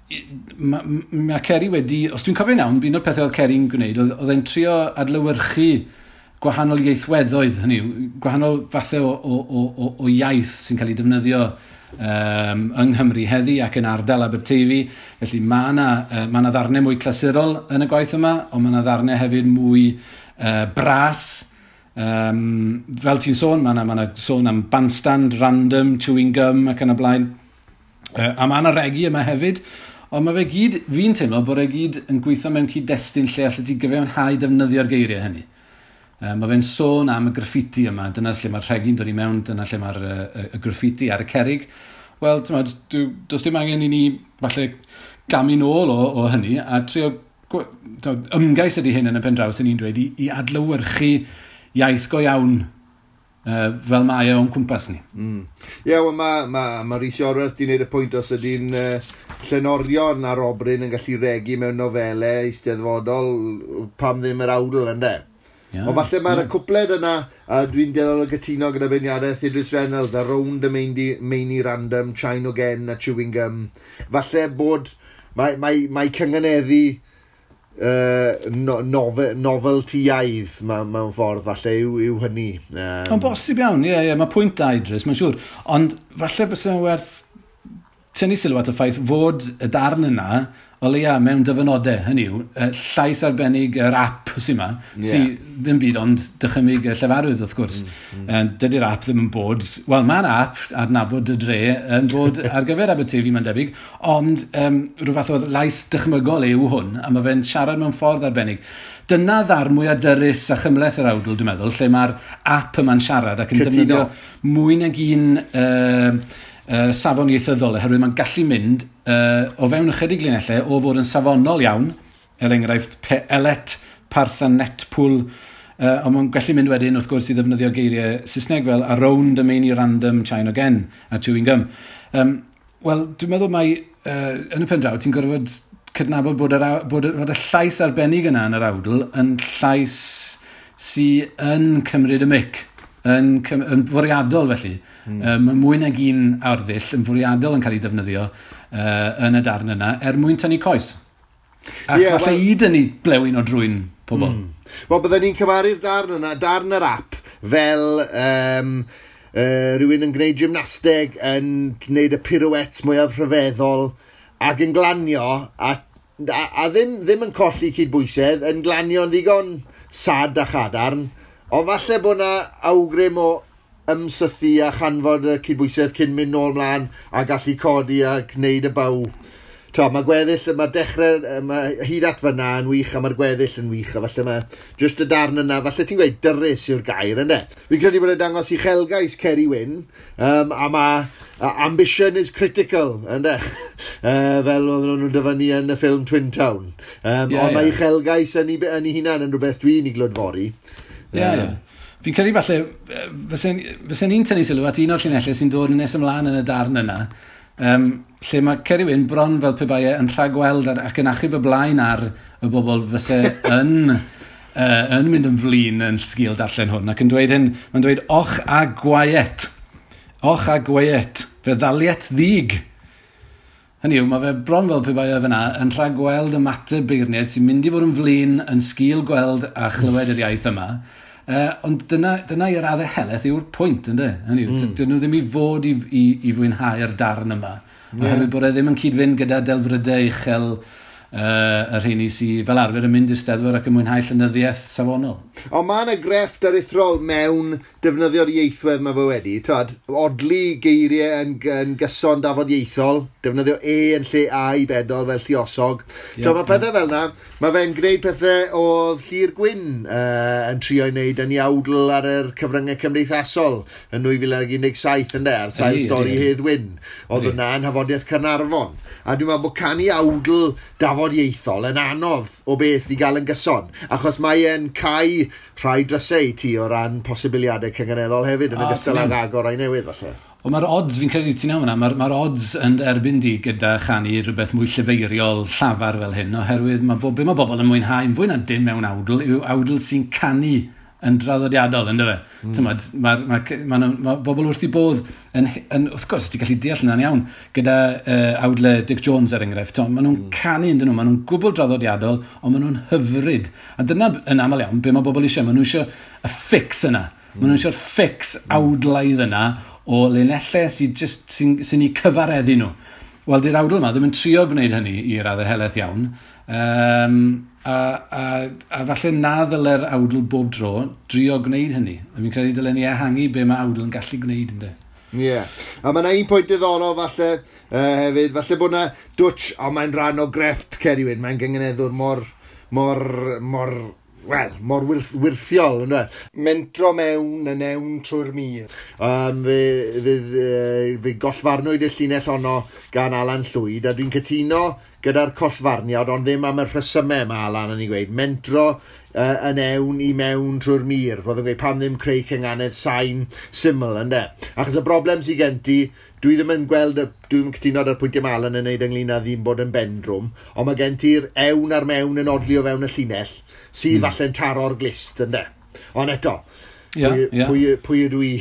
Mae Ceri wedi, os dwi'n cofio'n iawn, un o'r pethau oedd Ceri'n gwneud, oedd e'n trio adlewyrchu gwahanol ieithweddoedd, hynny yw, gwahanol fathau o iaith sy'n cael ei defnyddio yng Nghymru heddi ac yn ardal Aberteifi. Felly mae yna ddarnau mwy clasurol yn y gwaith yma, ond mae yna ddarnau hefyd mwy bras. Fel ti'n sôn, mae yna sôn am bandstand, random, chewing gum ac yn y blaen. A mae yna regi yma hefyd. Ond mae fe gyd, fi'n teimlo bod e gyd yn gweithio mewn cyd-destun lle allet ti gyfiawnhau defnyddio'r geiriau hynny. Mae fe'n sôn am y graffiti yma, dyna lle mae'r rhegi'n dod i mewn, dyna lle mae'r y graffiti ar y cerrig. Wel, ti'n meddwl, does dim angen i ni falle gamu nôl o hynny a trio ymgais ydy hyn yn y pen draw sy'n ni'n dweud i adlewyrchu iaith go iawn fel mae e o'n cwmpas ni. Ie, yeah, wel mae Rhys Iorwerth di wneud y pwynt os ydy'n llenorion ar obryn yn gallu regi mewn nofelau eisteddfodol, pam ddim yr awdl, ynde? Yeah, ond falle mae'r cwpled yna, a dwi'n dueddol o gytuno gyda beirniadaeth Idris Reynolds, a round y meini random, China again a chewing gum. Falle bod, mae cynganeddu noveltyaidd mewn ffordd, falle yw hynny. Ond bosib iawn, ie, mae pwynt da Idris, mae'n siŵr. Ond falle byse werth tynnu sylw at y ffaith fod y darn yna, o leia mewn dyfynodau, hynny yw, llais arbennig yr app sy'n yma, sy ddim byd ond dychymyg y llefarydd, wrth gwrs. Dydy'r app ddim yn bod, wel, mae'r app adnabod y dre yn bod ar gyfer Aberteifi, mae'n debyg, ond rhyw fath o lais dychmygol yw hwn, a mae fe'n siarad mewn ffordd arbennig. Dyna ddarn mwyaf dyrys a chymhleth yr awdl, dwi'n meddwl, lle mae'r app yma'n siarad ac yn defnyddio mwy nag un safon ieithyddol, oherwydd mae'n gallu mynd o fewn ychydig linellau o fod yn safonol iawn, er enghraifft elet, parth a netpwl, ond mae'n gallu mynd wedyn wrth gwrs i ddefnyddio geiriau Saesneg fel around y meini random, China again a chewing gum. Wel, dwi'n meddwl mai yn y pen draw ti'n gorfod cydnabod bod y llais arbennig yna yn yr awdl yn llais sy yn cymryd y mic, yn fwriadol felly. Mae mwy nag un arddull yn fwriadol yn cael ei defnyddio yn y darn yna er mwyn tynnu coes. Ac falle i dynnu blewyn o drwyn pobl. Wel, byddwn ni'n cymharu'r darn yna, darn yr app, fel rhywun yn gwneud gymnasteg, yn gwneud y pirouettes mwyaf rhyfeddol, ac yn glanio, a ddim yn colli cydbwysedd, yn glanio'n ddigon sad a chadarn, ond falle bod yna awgrym o ymsythu a chanfod y cydbwysedd cyn mynd nôl mlaen a gallu codi a gwneud y baw. to, mae gweddill, mae'r dechrau, mae hyd at fyna yn wych, a mae'r gweddill yn wych, a falle mae just y darn yna, falle ti'n gweud dyrys yw'r gair, ynddo? Fi'n credu bod e'n dangos uchelgais Ceri Wyn, a mae ambition is critical, ynddo? Fel oedden nhw'n dyfynnu yn y ffilm Twin Town. Ond mae uchelgais yn ei hunan yn rhywbeth dwi'n ei glodfori. Ie, ie. Fi'n credu falle, fysen ni'n tynnu sylw at un o'r llinellau sy'n dod yn nes ymlaen yn y darn yna, lle mae Ceri Wyn bron fel pe bai e yn rhagweld ac yn achub y blaen ar y bobl fyse yn, yn mynd yn flin yn sgil darllen hwn, ac yn dweud hyn, mae'n dweud, och a gwaet, och a gwaet, fe ddaliet ddig. Hynny yw, mae fe bron fel pe bai e fyna yn rhagweld ymateb beirniaid sy'n mynd i fod yn flin yn sgil gweld a chlywed yr iaith yma. Ond dyna i'r raddau helaeth yw'r pwynt, ynddo? Hynny yw, dyn nhw ddim i fod i fwynhau'r darn yma. Oherwydd bod e ddim yn cyd-fynd gyda delfrydau uchel y rheini sydd fel arfer yn mynd i'r Steddfod ac yn mwynhau llenyddiaeth safonol. Ond mae yna grefft aruthrol mewn defnyddio'r ieithwedd mae fe wedi. Twad, odli geiriau yn gyson dafodieithol, defnyddio e yn lle a i bedol fel lluosog. Yeah, mae pethau fel yna, mae fe'n gwneud pethau oedd Llyr Gwyn yn trio i wneud yn ei awdl ar yr cyfryngau cymdeithasol yn 2017 ynde, ar sail stori Hedd Wyn. Oedd hwnna yn Nhafodiaith Caernarfon. A dwi'n meddwl bod canu awdl dafodieithol yn anodd o beth i gael yn gyson, achos mae e'n cau rhai drysau ti o ran posibiliadau cynganeddol hefyd, yn ogystal ag agor rai newydd, falle. Ond mae'r odds, fi'n credu ti'n iawn yna, mae'r odds yn erbyn di gyda chanu rhywbeth mwy llefeiriol llafar fel hyn, oherwydd mae bobl yn mwynhau yn fwy na dim mewn awdl, yw awdl sy'n canu yn draddodiadol, ynddo fe? Mae bobl wrth i bodd, yn, wrth gwrs, ti'n gallu deall hynna'n iawn, gyda awdle Dic Jones er enghraifft, maen nhw'n canu ynddyn nhw, maen nhw'n gwbl draddodiadol, ond maen nhw'n hyfryd. A dyna yn aml iawn, be mae bobl eisiau, maen nhw eisiau y fix yna. Maen nhw eisiau'r fix awdlaidd yna o linellau sy'n sy eu cyfareddu nhw. Wel, di'r awdl yma ddim yn trio gwneud hynny i raddau helaeth iawn. A falle na ddyle'r awdl bob dro drio gwneud hynny. A fi'n credu dylen ni ehangu be mae awdl yn gallu gwneud, ynddo. Ie. Yeah. A mae yna un pwynt diddorol falle hefyd, falle bod yna dwtch, ond mae'n rhan o grefft Ceri Wyn, mae'n gynganeddwr mor wirthiol, ynddo. Mentro mewn yn ewn trwy'r mur. Fe gollfarnwyd y llinell honno gan Alan Llwyd, a dwi'n cytuno gyda'r collfarniad, ond ddim am y rhesymau mae Alan yn ei gweud. Mentro yn ewn i mewn trwy'r mur. Roedd yn gweud pam ddim creu cynganedd sain syml, ynddo. Achos y broblem sydd gen ti, dwi ddim yn gweld, dwi ddim yn cytuno ar y pwyntiau mae Alan yn neud ynglyn â ddim bod yn bendrwm, ond mae gen ti'r ewn a'r mewn yn odli o fewn y llinell, sydd falle'n taro'r glist, ynddo. Ond eto, pwy ydw i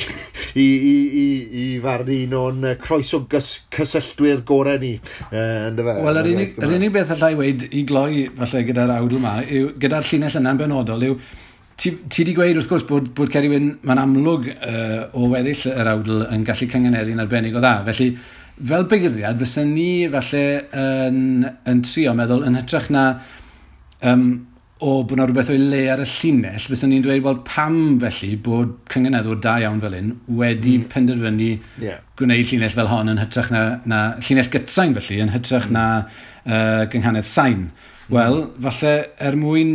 i farnu un o'n croeso cysylltwyr gorau ni. Wel, yr unig beth allai weud i gloi falle gyda'r awdl yma, yw, gyda'r llinell yna'n benodol, yw ti wedi gweud wrth gwrs bod Ceri Wyn, mae'n amlwg o weddill yr awdl yn gallu cynganeddu'n arbennig o dda. Felly, fel beirniad, fysen ni falle yn trio meddwl yn hytrach na o bod yna rhywbeth o'i le ar y llinell, fysen ni'n dweud, wel, pam felly bod cynganeddwr da iawn fel hyn wedi penderfynu gwneud llinell fel hon yn hytrach na llinell gytsain felly, yn hytrach na gynghanedd sain. Wel, falle er mwyn,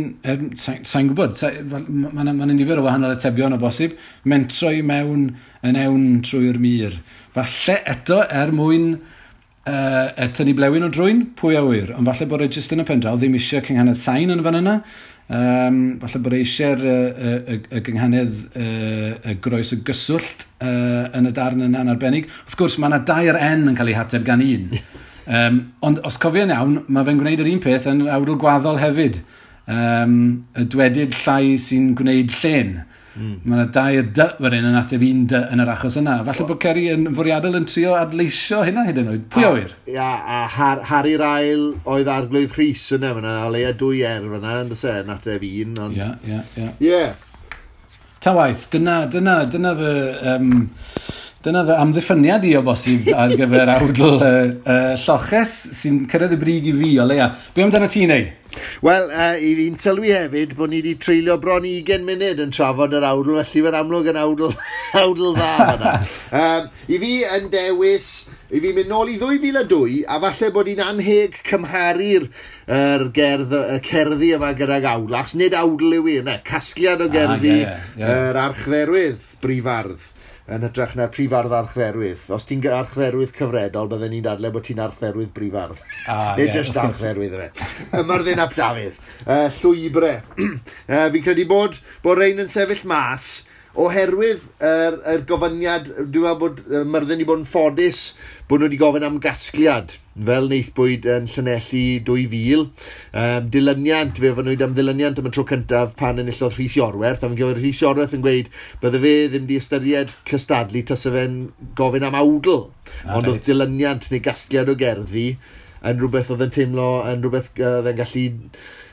sain gwybod, mae yna nifer o wahanol atebion o bosib, mentro i mewn yn ewn trwy'r mur. Falle eto er mwyn tynnu blewyn o drwyn, pwy a ŵyr, ond falle bod e jyst yn y pen draw ddim eisiau cynghanedd sain yn fan yna. Falle bod e eisiau'r y gynghanedd y groes y gyswllt yn y darn yna'n arbennig. Wrth gwrs, mae yna dair N yn cael ei hateb gan un. Ond os cofio'n iawn, mae fe'n gwneud yr un peth yn awdl gwaddol hefyd. Y dwedyd llai sy'n gwneud llen. Mae yna dair D fan hyn yn ateb un D yn yr achos yna. Falle bod Ceri yn fwriadol yn trio adleisio hynna hyd yn oed. Pwy a ŵyr? Ia, a Harri'r Ail oedd Arglwydd Rhys yna fyna, o leia dwy R fyna, yn dyse, yn ateb un. Ond... Ie. Ta waith, dyna fy... Dyna fy amddiffyniad i o bosib ar gyfer awdl lloches sy'n cyrraedd y brig i fi o leia. Be amdano ti neu? Wel, i fi'n sylwi hefyd bod ni wedi treulio bron 20 munud yn trafod yr awdl, felly mae'n amlwg yn awdl, awdl dda fanna. I fi yn dewis, i fi mynd nôl i 2002, a falle bod hi'n anheg cymharu'r gerdd, y cerddi yma gydag awdl, achos nid awdl yw hi, ne, casgliad o gerddi yr archdderwydd brifardd yn hytrach na'r prifardd archdderwydd. Os ti'n archdderwydd cyfredol, bydden ni'n dadlau bod ti'n archdderwydd brifardd. Nid just archdderwydd yfe. Myrddin ap Dafydd. Llwybre. Fi'n credu bod rhain yn sefyll mas oherwydd yr gofyniad, dwi'n meddwl bod Myrddin wedi bod yn ffodus bod nhw wedi gofyn am gasgliad, fel wnaethpwyd yn Llanelli 2000. Dilyniant, fe ofynnwyd am ddilyniant am y tro cyntaf pan enillodd Rhys Iorwerth, a fi'n gwybod Rhys Iorwerth yn gweud bydde fe ddim wedi ystyried cystadlu tase fe'n gofyn am awdl. Ond oedd dilyniant neu gasgliad o gerddi yn rhywbeth oedd yn teimlo, yn rhywbeth oedd yn gallu...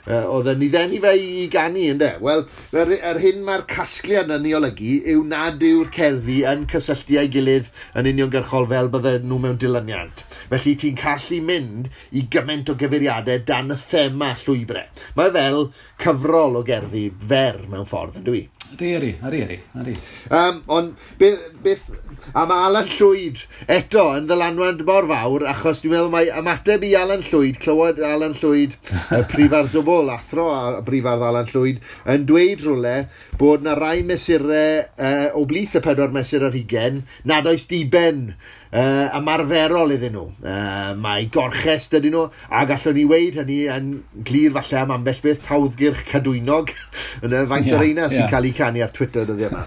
oedd yn ei ddenu fe i ganu, ynde? Wel, yr hyn mae'r casgliad yn ei olygu yw nad yw'r cerddi yn cysylltu â'i gilydd yn uniongyrchol fel bydden nhw mewn dilyniant. Felly ti'n gallu mynd i gymaint o gyfeiriadau dan y thema llwybrau. Mae fel cyfrol o gerddi fer mewn ffordd, yndw i? Ydy. Ond beth, a mae Alan Llwyd eto yn ddylanwad mor fawr, achos dwi'n meddwl mae ymateb i Alan Llwyd, clywed Alan Llwyd, y prifardd dwbl, athro a brifardd Alan Llwyd, yn dweud rhywle bod na rai mesurau o blith y 4 mesur ar 20 nad oes diben ymarferol iddyn nhw. Mae gorchest ydyn nhw, a gallwn ni weud hynny yn glir falle am ambell beth, tawddgyrch cadwynog, yn y faint o'r reina sy'n cael ei canu ar Twitter dyddiau yma.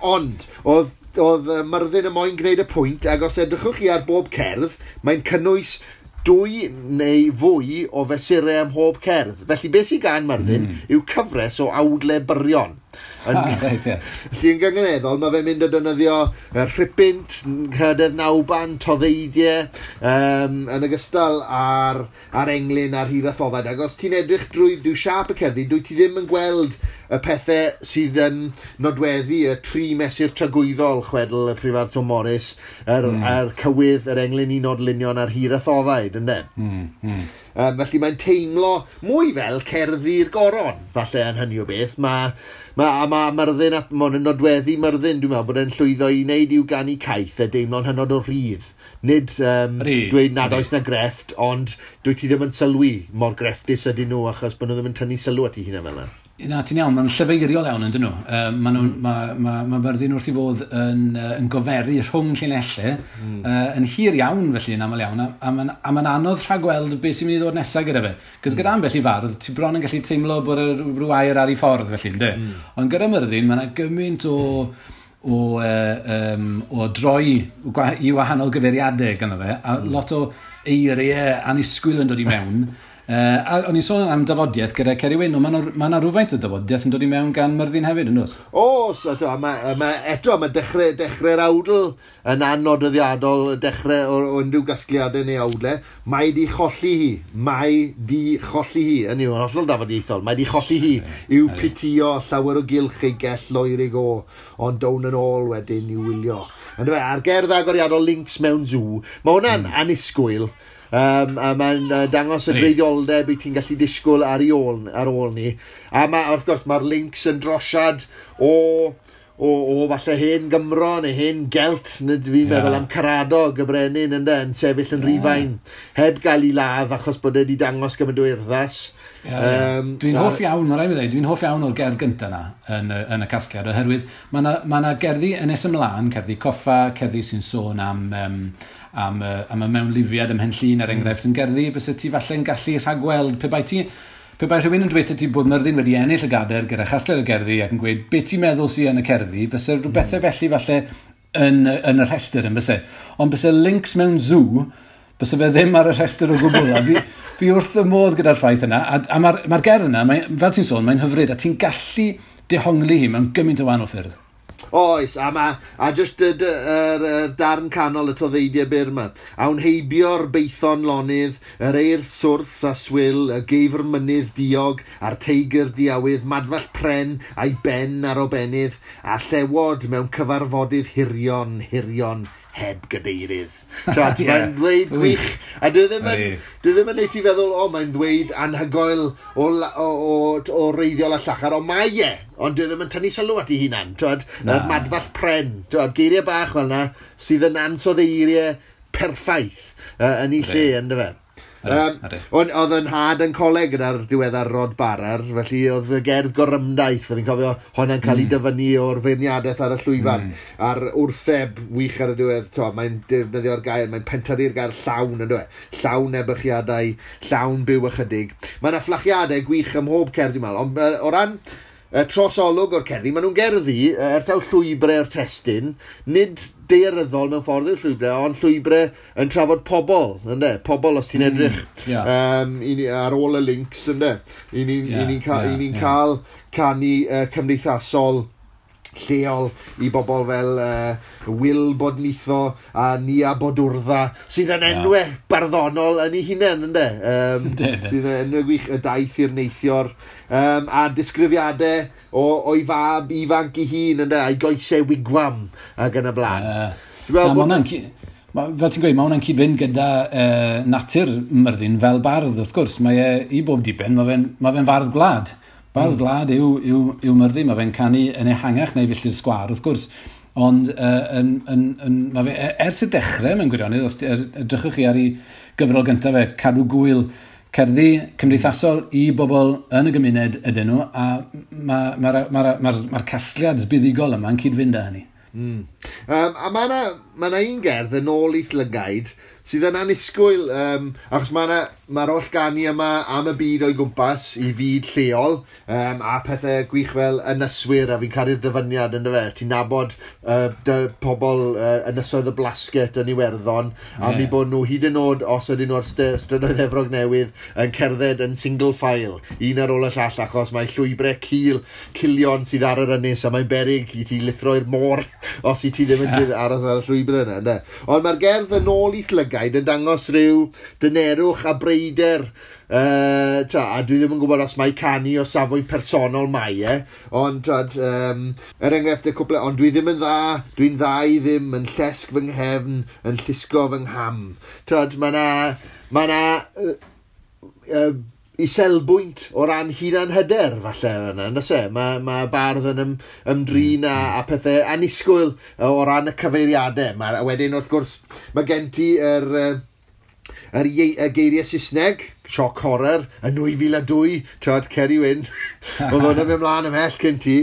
Ond, oedd Myrddin y moyn gwneud y pwynt, ac os edrychwch chi ar bob cerdd, mae'n cynnwys 2 neu fwy o fesurau ym mhob cerdd. Felly beth sy'n gan Myrddin yw cyfres o awdle byrion. Felly yn gynganeddol, mae fe'n mynd a defnyddio rhipynt, cydedd nawban, toddeidiau, yn ogystal ar englyn a'r hiraethoddau. Ac os ti'n edrych drwy siâp y cerddi, dwi ti ddim yn gweld y pethau sydd yn nodweddu y 3 mesur tragwyddol, chwedl y prifardd Tom Morris, yr cywydd, yr englyn i nodlunion a'r hiraethoddau, ynde? Felly mae'n teimlo mwy fel cerddi'r goron, falle yn hynny o beth. Mae Myrddin, mae'n nodweddu Myrddin, dwi'n meddwl, bod e'n llwyddo i wneud i'w ganu caeth a deimlo'n hynod o rhydd. Nid dweud nad oes na grefft, ond dwi ti ddim yn sylwi mor grefftus ydyn nhw, achos bod nhw ddim yn tynnu sylw at eu hunain fel yna. Na, ti'n iawn, maen nhw'n llyfeiriol iawn yn dyn nhw. Mae Myrddin wrth i fod yn goferu rhwng llinellau, yn hir iawn felly, yn aml iawn, a mae'n anodd rhagweld beth sy'n mynd i ddod nesaf gyda fe. Cos gyda ambell i fardd, ti bron yn gallu teimlo bod rhyw air ar ei ffordd felly, ynddo? Ond gyda Myrddin, mae yna gymaint o droi i wahanol gyfeiriadau ganddo fe, a lot o eiriau annisgwyl yn dod i mewn. A o'n i'n sôn am dafodiaeth gyda Ceri Wyn, ond mae yna rhywfaint o dafodiaeth yn dod i mewn gan Myrddin hefyd, yn does? Oes, eto, mae dechrau'r awdl yn annodweddiadol, dechrau o unrhyw gasgliadau neu awdlau. Mae di cholli hi, yn yw, yn hollol dafodiaethol, mae di cholli hi i'w pitio llawer o gylch ei gell loerig o, ond down yn ôl wedyn i'w wylio. Yndyfe, a'r gerdd agoriadol Links mewn Zoo, mae hwnna'n annisgwyl. A mae'n dangos y gwreiddioldeb i ti'n gallu disgwyl ar ôl ni. A ma, wrth gwrs, mae'r links yn drosiad o falle hen Gymro neu hen Gelt, neu fi'n meddwl am Caradog y brenin ynde, yn sefyll yn Rhufain, heb gael ei ladd achos bod e wedi dangos gymaint o urddas. Dwi'n hoff iawn, mae'n rhaid i mi ddweud, dwi'n hoff iawn o'r gerdd gyntaf yna yn y casgliad, oherwydd mae yna gerddi yn nes ymlaen, cerddi coffa, cerddi sy'n sôn am y mewnlifiad ym Mhenllyn, er enghraifft, yn gerddi byse ti falle'n gallu rhagweld pe bai rhywun yn dweud ti bod Myrddin wedi ennill y gadair gyda chasgliad o gerddi ac yn gweud beth ti'n meddwl sydd yn y cerddi, byse rhywbethau felly falle yn y rhestr yn byse. Ond byse Links mewn Zoo, byse fe ddim ar y rhestr o gwbl. A fi wrth y modd gyda'r ffaith yna, a mae'r gerdd yna, fel ti'n sôn, mae'n hyfryd, a ti'n gallu dehongli hi mewn gymaint o wahanol ffyrdd. Oes, a just y darn canol y toddeidiau byr yma. Awn heibio'r beithon lonydd, yr eirth swrth a swil, y geifr mynydd diog, a'r teigr diawydd, madfall pren a'i ben ar obennydd, a llewod mewn cyfarfodydd hirion, hirion, heb gadeirydd. Twad, yeah. Mae'n ddweud gwych. A dwi ddim yn, dwi ddim yn neud ti feddwl, o, mae'n ddweud anhygoel o reiddiol a llachar, ond mae e, ond dwi ddim yn tynnu sylw at ei hunan. Twad, na'r madfall pren, twad, geiriau bach fel yna, sydd yn ansoddeiriau perffaith yn ei lle, ynddo fe. Ond oedd yn nhad yn coleg gyda'r diweddar Rod Barar, felly oedd y gerdd gorymdaith, a fi'n cofio honna'n cael ei dyfynnu o'r feirniadaeth ar y llwyfan, a'r wrtheb wych ar y diwedd, to, mae'n defnyddio'r gair, mae'n pentyrru'r gair llawn, ynddo e? Llawn ebychiadau, llawn byw ychydig. Mae yna fflachiadau gwych ym mhob cerdd, dwi'n meddwl, ond o ran trosolwg o'r cerddi, maen nhw'n gerddi, er taw llwybrau'r testun, nid daearyddol mewn ffordd yw'r llwybrau, ond llwybrau yn trafod pobl, ynde? Pobl os ti'n edrych ar ôl y links, ynde? I ni'n yeah, ni ca yeah, ni yeah. cael canu cymdeithasol lleol i bobl fel Wil Bodnitho a Nia Bodwrdda, sydd yn enwau barddonol yn ei hunain, ynde? Sydd yn enwau gwych, y daith i'r neithior, a disgrifiadau o'i fab ifanc ei hun, ynde? A'i goesau wigwam ac yn y blaen. Dwi'n meddwl bod fel ti'n gweud, mae hwnna'n cyd-fynd gyda natur Myrddin fel bardd, wrth gwrs. Mae e, i bob diben, mae fe'n fardd gwlad. Bardd gwlad yw Myrddin, mae fe'n canu yn ehangach neu filltir sgwâr, wrth gwrs. Ond mae fe, ers y dechrau mewn gwirionedd, os edrychwch chi ar ei gyfrol gyntaf fe, Cadw Gwyl, cerddi cymdeithasol i bobl yn y gymuned ydyn nhw, a mae'r ma, ma, ma, ma, ma casgliad buddugol yma yn cyd-fynd â hynny. A mae yna ma un gerdd yn ôl i'th lygaid sydd yn annisgwyl, achos mae'r ma holl ganu yma am y byd o'i gwmpas i fyd lleol, a pethau gwych fel ynyswyr, a fi'n caru'r dyfyniad ynddo fe. Ti'n nabod pobl ynysoedd y Blasket yn Iwerddon, a mi bod nhw hyd yn oed, os ydyn nhw ar strydoedd Efrog Newydd, yn cerdded yn single file, un ar ôl y llall, achos mae llwybrau cilion sydd ar yr ynys, a mae'n beryg i ti lithro i'r môr os i ti ddim yn aros ar y llwybr yna. Ynde? Ond mae'r gerdd yn ôl i'th lygaid yn dangos rhyw dynerwch a breider, a dwi ddim yn gwybod os mae canu o safbwynt personol mae e, ond twad, er enghraifft y cwpl, ond dwi ddim yn dda, dwi'n dda i ddim, yn llesg fy nghefn, yn llusgo fy ngham. Twad, mae na iselbwynt o ran hunan-hyder, falle, yna, yndos e? Mae ma bardd yn ymdrin a pethau annisgwyl o ran y cyfeiriadau. A wedyn, wrth gwrs, mae gen ti yr geiriau Saesneg, shock horror, yn 2002, twad, Ceri Wyn, oedd hwnna'n mynd mlaen ymhell cyn ti.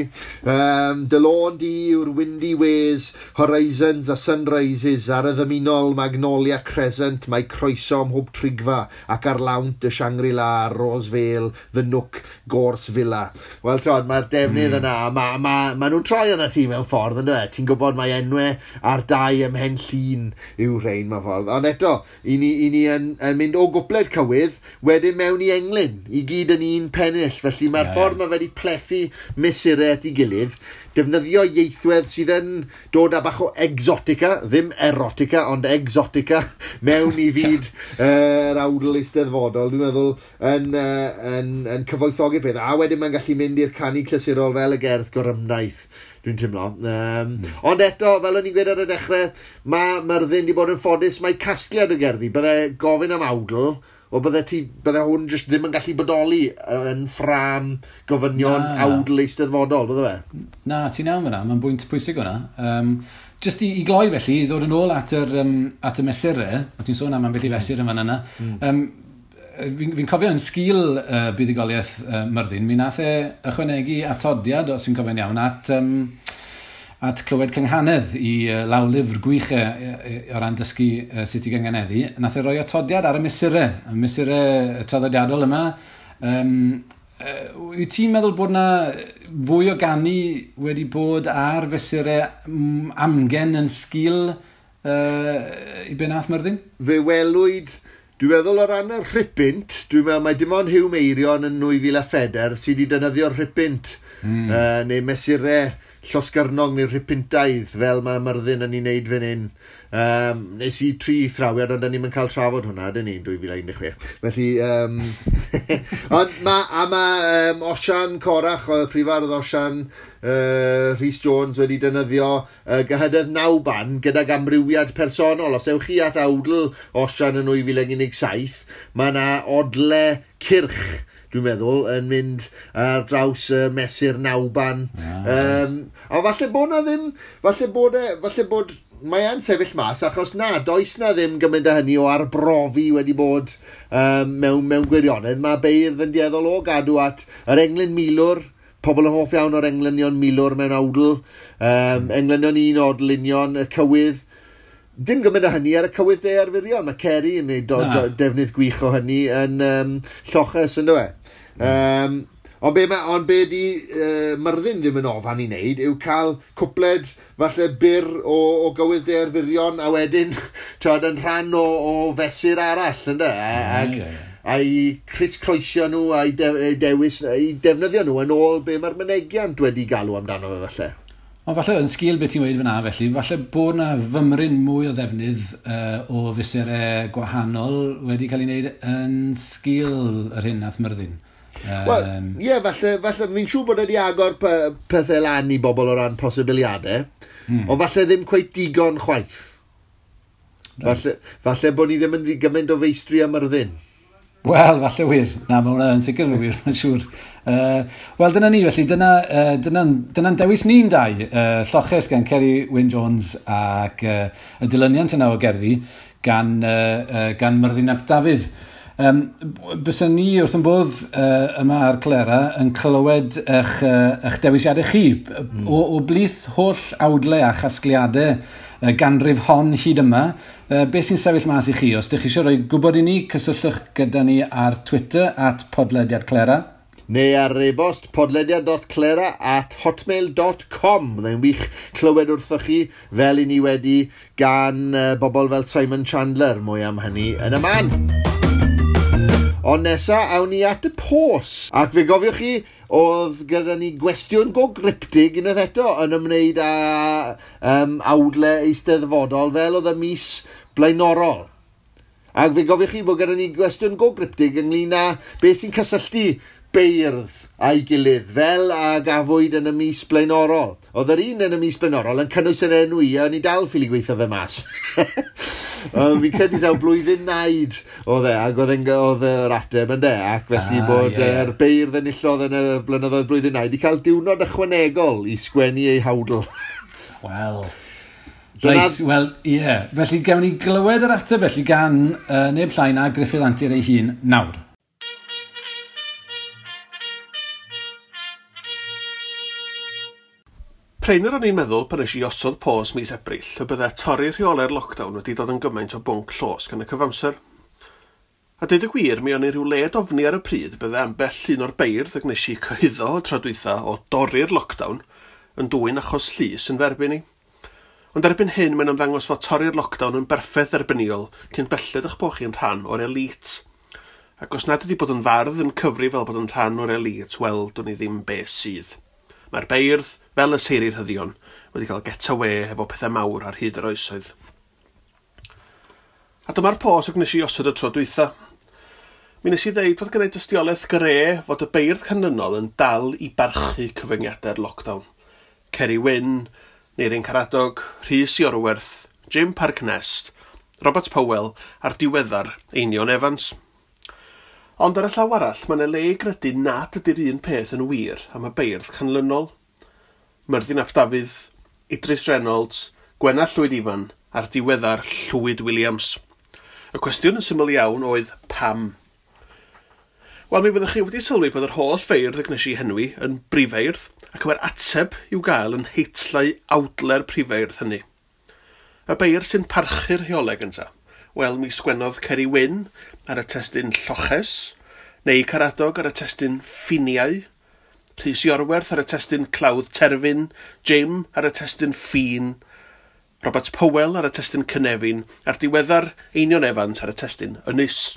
Dy lôn di yw'r windy ways, horizons a sunrises, ar y ddymunol Magnolia Crescent, mae croeso ym mhob trigfa, ac ar lawnt y Shangri-La, Rose Vale, The Nook, Gorse Villa. Wel, twad, mae'r defnydd yna, ma nhw'n troi yna ti mewn ffordd, ynddo e? Ti'n gwybod mae enwau ar dau ym Mhen Llŷn yw rhain mewn ffordd. Ond eto, i ni yn mynd o gwpled cywydd, wedyn mewn i englyn, i gyd yn un pennill. Felly mae'r ffordd mae wedi plethu mesurau at ei gilydd, defnyddio ieithwedd sydd yn dod â bach o exotica, ddim erotica, ond exotica, mewn i fyd yr awdl eisteddfodol, dwi'n meddwl, yn cyfoethogi'r peth. A wedyn mae'n gallu mynd i'r canu clasurol fel y gerdd gorymdaith, dwi'n teimlo. Ond eto, fel o'n i'n gweud ar y dechrau, mae Myrddin wedi bod yn ffodus, mae casgliad o gerddi, bydde gofyn am awdl, o bydde hwn jyst ddim yn gallu bodoli yn ffrâm gofynion awdl eisteddfodol, bydde fe? Na, ti'n iawn fyna, mae'n bwynt pwysig hwnna. Jyst i gloi felly, i ddod yn ôl at y mesurau, o ti'n sôn am ambell i fesur yn fan yna, fi'n cofio yn sgil buddugoliaeth Myrddin, mi nath e ychwanegu atodiad, os fi'n cofio'n iawn, at clywed cynghanedd i lawlyfr gwych o ran dysgu sut i gynganeddu. Nath e roi atodiad ar y mesurau traddodiadol yma. Wyt ti'n meddwl bod na fwy o ganu wedi bod ar fesurau amgen yn sgil i be nath Myrddin? Fe welwyd, dwi'n meddwl o ran y rhipynt, dwi'n meddwl mae dim ond Huw Meirion yn 2004 sydd wedi defnyddio'r rhipynt, neu mesurau llosgyrnog neu'r rhipintaidd fel mae Myrddin yn ei wneud fan hyn. Nes i 3 thrawiad, ond ni'n cael trafod hwnna, dyn ni, 2016. Felly, ond mae Osian Corach, y prifardd Osian Rhys Jones wedi defnyddio gyhydedd 9 ban gydag amrywiad personol. Os ewch chi at awdl Osian yn 2017, mae yna odle cyrch, dwi'n meddwl, yn mynd ar draws mesur 9 ban. A falle bod na ddim, falle bod mae e'n sefyll mas, achos na, does na ddim gymaint â hynny o arbrofi wedi bod mewn gwirionedd. Mae beirdd yn dueddol o gadw at yr englyn milwr, pobl yn hoff iawn o'r englynion milwr mewn awdl, englynion un odl union, y cywydd. Dim gymaint â hynny ar y cywydd de arferion. Mae Ceri yn gwneud defnydd gwych o hynny yn lloches, yn dywe. Ond be di Myrddin ddim yn ofan i wneud yw cael cwpled falle byr o gywydd de arferion a wedyn twod, yn rhan o fesur arall, ynde? A'i crisscrossio nhw a'i dewis, a'i defnyddio nhw yn ôl be mae'r mynegiant wedi galw amdano fe falle. Ond falle yn sgil beth ti'n weud fyna felly, falle bod na fymryn mwy o ddefnydd o fesurau gwahanol wedi cael ei wneud yn sgil yr hyn nath Myrddin. Wel, ie, falle, fi'n siŵr bod wedi agor pethau lan i bobl o ran posibiliadau, ond falle ddim cweit digon chwaith. Right. Falle bod ni ddim yn gymaint o feistri am Myrddin. Wel, falle wir. Na, mae hwnna yn sicr yn wir, mae'n siŵr. Wel, dyna ni, felly, dyna'n dewis ni'n dau. Lloches gan Ceri Wyn Jones ac y dilyniant yna o gerddi gan Myrddin ap Dafydd. Bysen ni wrth yn bodd yma ar Clera yn clywed eich dewisiadau chi. O blith holl awdlau a chasgliadau ganrif hon hyd yma, beth sy'n sefyll mas i chi? Os ydych chi eisiau rhoi gwybod i ni, cysylltwch gyda ni ar Twitter @podlediadclera. Neu ar e-bost podlediad.clera@hotmail.com. Byddai'n wych clywed wrthoch chi fel i ni wedi gan bobl fel Simon Chandler, mwy am hynny yn y man. Ond nesa, awn ni at y pos. Ac fe gofiwch chi, oedd gyda ni gwestiwn go gryptig unwaith eto yn ymwneud â awdle eisteddfodol fel oedd y mis blaenorol. Ac fe gofiwch chi bod gyda ni gwestiwn go gryptig ynglyn â beth sy'n cysylltu beirdd a'i gilydd fel a gafwyd yn y mis blaenorol. Oedd yr un yn y mis blaenorol yn cynnwys yr enw i, a ni dal ffili gweithio fe mas. Fi'n credu taw blwyddyn naid oedd e, ac oedd yr ateb yn de, ac felly bod yr beirdd enillodd yn y blynyddoedd blwyddyn naid i cael diwrnod ychwanegol i sgwennu ei hawdl. Wel, reit, wel, ie. Felly gawn ni glywed yr ateb felly gan neb llai na Gruffydd Antur ei hun nawr. Prin yr o'n i'n meddwl pan nes i osod pos mis Ebrill y bydde torri rheolau'r lockdown wedi dod yn gymaint o bwnc llosg yn y cyfamser. A deud y gwir, mi o'n i rhyw led ofni ar y pryd bydde ambell un o'r beirdd y gwnes i cyhuddo o tro dwytha o dorri'r lockdown yn dwyn achos llys yn dderbyn i. Ond erbyn hyn mae'n ymddangos fod torri'r lockdown yn berffaith dderbyniol cyn belled eich bod chi'n rhan o'r elite. Ac os nad ydi bod yn fardd yn cyfri fel bod yn rhan o'r elite, wel, dwn i ddim be sydd. Mae'r beirdd, fel y seiri rhyddion, wedi cael get away efo pethau mawr ar hyd yr oesoedd. A dyma'r pos y gwnes i osod y tro dwytha. Mi nes i ddeud fod gyda'i dystiolaeth gre fod y beirdd canlynol yn dal i barchu cyfyngiadau'r lockdown. Ceri Wyn, Neirin Caradog, Rhys Iorwerth, Jim Parc Nest, Robert Powell a'r diweddar Einion Evans. Ond ar y llaw arall, mae yna le i gredu nad ydy'r un peth yn wir am y beirdd canlynol. Myrddin ap Dafydd, Idris Reynolds, Gwenna Llwyd Ifan a'r diweddar Llwyd Williams. Y cwestiwn yn syml iawn oedd pam? Wel, mi fyddwch chi wedi sylwi bod yr holl feirdd y gwnes i henwi yn brifeirdd, ac mae'r ateb i'w gael yn heitlau awdle'r prifeirdd hynny. Y beirdd sy'n parchu'r rheolau gyntaf. Wel, mi sgwennodd Ceri Wyn ar y testun Lloches, neu Caradog ar y testun Ffiniau, Rhys Iorwerth ar y testun Clawdd Terfyn, Jim ar y testun Ffin, Robert Powell ar y testun Cynefin, a'r diweddar Einion Evans ar y testun Ynys.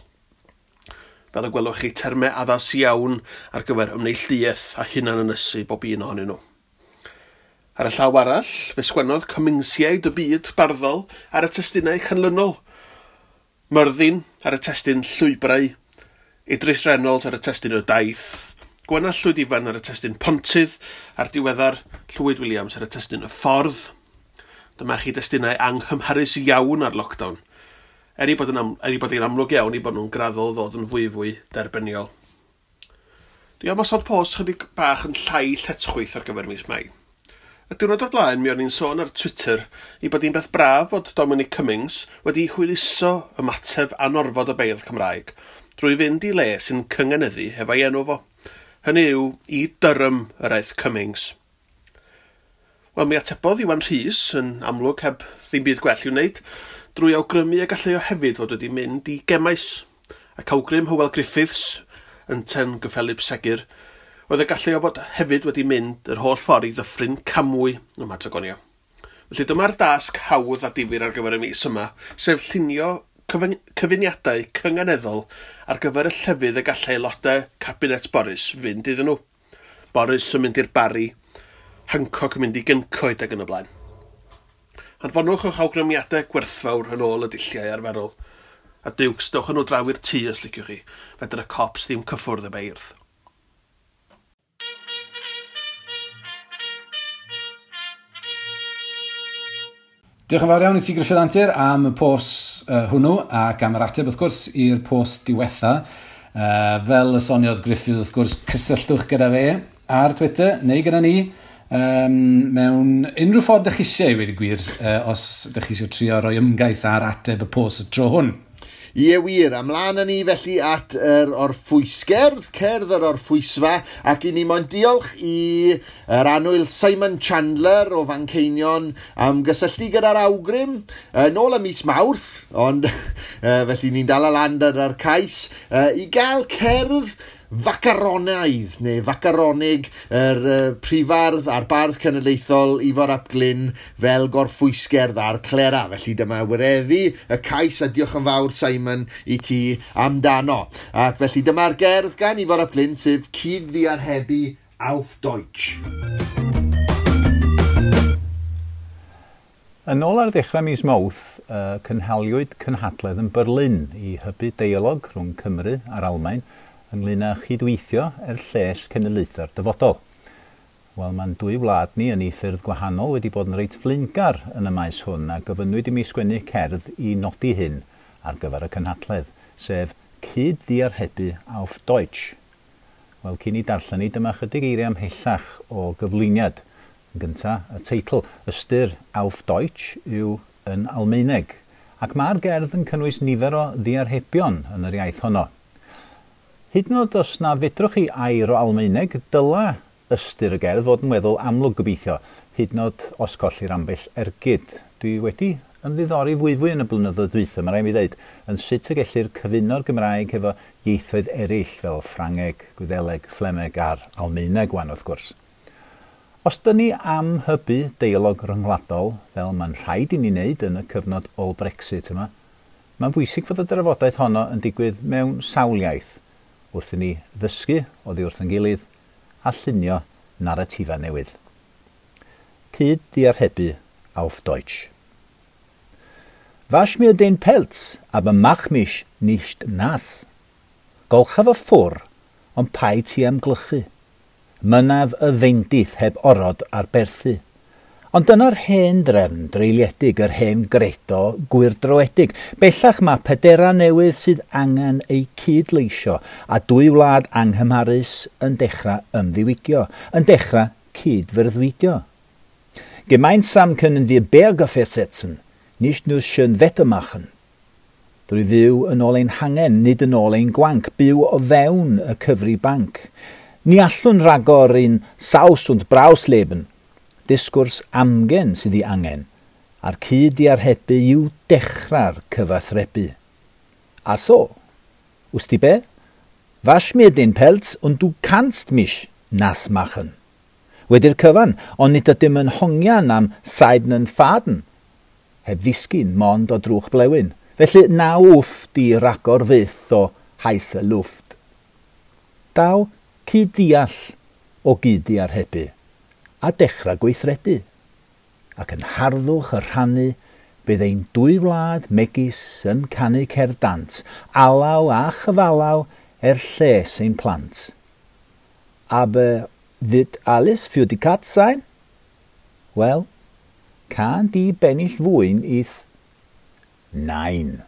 Fel y gwelwch chi, termau addas iawn ar gyfer ymneilltuaeth a hunan ynysu bob un ohonyn nhw. Ar y llaw arall, fe sgwennodd Cummingsiaid y byd barddol ar y testunau canlynol. Myrddin ar y testun Llwybrau, Idris Reynolds ar y testun Y Daith, Gwenallt Llwyd Ifan ar y testun Pontydd, a'r diweddar Llwyd Williams ar y testun Y Ffordd. Dyma chi destunau anghymharus iawn ar lockdown. Er ei bod yn, am, er ei bod yn amlwg iawn i bod nhw'n graddol ddod yn fwyfwy derbyniol. Dwi am osod post chydig bach yn llai lletchwith ar gyfer mis Mai. Y diwrnod o'r blaen, mi o'n i'n sôn ar Twitter i bod hi'n beth braf fod Dominic Cummings wedi hwyluso ymateb anorfod y beirdd Cymraeg drwy fynd i le sy'n cyngeneddu hefo'i enw fo. Hynny yw, i Durham yr aeth Cummings. Wel, mi atebodd Iwan Rhys, yn amlwg heb ddim byd gwell i'w wneud, drwy awgrymu y gallai o hefyd fod wedi mynd i Gemaes, ac awgrym Hywel Griffiths, yn ten gyffelib segur, oedd y gallai o fod hefyd wedi mynd yr holl ffordd i ddyffryn Camwy ym Mhatagonia. Felly dyma'r dasg hawdd a difyr ar gyfer y mis yma, sef llunio cyfuniadau cynganeddol ar gyfer y llefydd y gallai aelodau Cabinet Boris fynd iddyn nhw. Boris yn mynd i'r Barri, Hancock yn mynd i Gyncoed ac yn y blaen. Anfonwch eich awgrymiadau gwerthfawr yn ôl y dulliau arferol. A diwcs, dewch â nhw draw i'r tŷ os liciwch chi, fedr y cops ddim cyffwrdd y beirdd. Diolch yn fawr iawn i ti Gruffydd Antur am y post hwnnw ac am yr ateb wrth gwrs i'r post diwetha. Fel y soniodd Gruffydd wrth gwrs, cysylltwch gyda fe ar Twitter neu gyda ni mewn unrhyw ffordd ydych chi eisiau i weud y gwir, os ydych chi eisiau trio rhoi ymgais ar ateb y post y tro hwn. Ie wir, ymlaen â ni felly at yr orffwysgerdd, cerdd yr orffwysfa, ac i ni moyn diolch i yr annwyl Simon Chandler o Fanceinion am gysylltu gyda'r awgrym yn ôl y mis Mawrth, ond felly ni'n dal lan ar cais, i gael cerdd facaronaidd neu facaronig yr prifardd a'r bardd cenedlaethol Ifor ap Glyn fel gorffwysgerdd ar Clera. Felly dyma wireddu y cais a diolch yn fawr Simon i ti amdano. Ac felly dyma'r gerdd gan Ifor ap Glyn sef Cyd-ddiarhebu auf Deutsch. Yn ôl ar ddechrau mis Mawrth, cynhaliwyd cynhadledd yn Berlin i hybu deialog rhwng Cymru a'r Almaen ynglyn â chydweithio er lles cenedlaethau'r dyfodol. Wel, mae'n dwy wlad ni yn ei ffyrdd gwahanol wedi bod yn reit flaengar yn y maes hwn a gofynnwyd i mi sgwennu cerdd i nodi hyn ar gyfer y cynhadledd, sef Cyd-ddiarhebu auf Deutsch. Wel, cyn i darllen i, dyma chydig eiriau ymhellach o gyflwyniad. Yn gyntaf, y teitl ystyr auf Deutsch yw yn Almaeneg, ac mae'r gerdd yn cynnwys nifer o ddiarhebion yn yr iaith honno. Hyd yn oed os na fedrwch chi air o Almaeneg, dyla ystyr y gerdd fod yn weddol amlwg gobeithio, hyd yn oed os collir ambell ergyd. Dwi wedi ymddiddori fwyfwy yn y blynyddoedd dwytha, mae rhaid mi ddweud, yn sut y gellir cyfuno'r Gymraeg efo ieithoedd eraill fel Ffrangeg, Gwyddeleg, Fflemeg a'r Almaeneg wan wrth gwrs. Os dyn ni am hybu deialog rhyngwladol, fel mae'n rhaid i ni wneud yn y cyfnod ôl-Brexit yma, mae'n bwysig fod y drafodaeth honno yn digwydd mewn sawl iaith, wrth i ni ddysgu oddi wrth ein gilydd a llunio naratifau newydd. Cyd-ddiarhebu auf Deutsch. Wasch mir den Pelz, aber mach mich nicht nass. Golcha fy ffwr, ond paid ti am glychu. Mynnaf y feindith heb orod ar berthu. Ond dyna'r hen drefn dreuliedig, yr hen gredo gwyrdroedig. Bellach mae pedera newydd sydd angen eu cydleisio a dwy wlad anghymharus yn dechrau ymddiwygio, yn dechrau cydfyrddwydio. Gemeinsam können wir Berge versetzen, nicht nur schön Wetter machen. Drwy fyw yn ôl ein hangen, nid yn ôl ein gwanc, byw o fewn y cyfri banc. Ni allwn ragor in Saus und Braus leben, disgwrs amgen sydd ei angen, a'r cyd-ddiarhebu yw dechrau'r cyfathrebu. A so, wst ti be? Wasch mir den Pelz und du kannst mich nass machen. Wedi'r cyfan, ond nid ydym yn hongian am seidenen Faden. Heb ddisgyn mond o drwch blewyn. Felly na wff di ragor fyth o heiße Luft. Daw cyd-ddeall o gyd-ddiarhebu. a dechrau gweithredu. Ac yn harddwch y rhannu, bydd ein dwy wlad megis yn canu cerdd dant, alaw a chyfalaw er lles ein plant. Aber wird alles für die Katz sein? Wel, can di bennill fwyn ith Nein.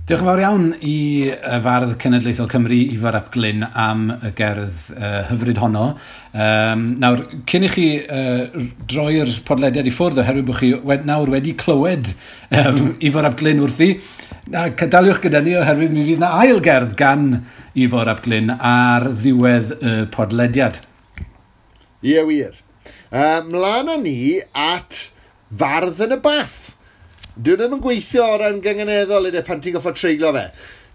Diolch yn fawr iawn i Fardd Cenedlaethol Cymru, Ifor ap Glyn, am y gerdd hyfryd honno. Nawr, cyn i chi droi'r podlediad i ffwrdd, oherwydd bod chi nawr wedi clywed Ifor ap Glyn wrthi, daliwch gyda ni oherwydd mi fydd na ail gerdd gan Ifor ap Glyn ar ddiwedd y podlediad. Ie, wir. Mlaen â ni at Fardd yn y Bath. Dwi ddim yn gweithio o ran gynganeddol ydy pan ti'n goffod treiglo fe.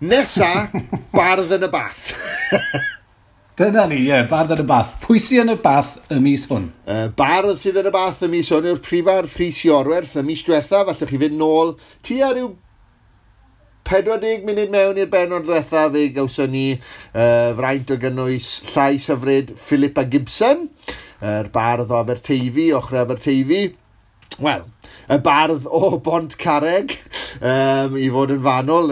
Nesa, Bardd yn y Bath. Dyna ni, ie, Bardd yn y Bath. Pwy sydd yn y bath y mis hwn? Bardd sydd yn y bath y mis hwn yw'r prifardd Rhys Iorwerth. Y mis diwetha, falle chi fynd nôl tua rhyw 40 munud mewn i'r bennod ddiwetha, fe gawson ni fraint o gynnwys llais hyfryd Philippa Gibson, yr bardd o Aberteifi, ochr Aberteifi. Wel, y bardd o Bont Carreg, i fod yn fanwl,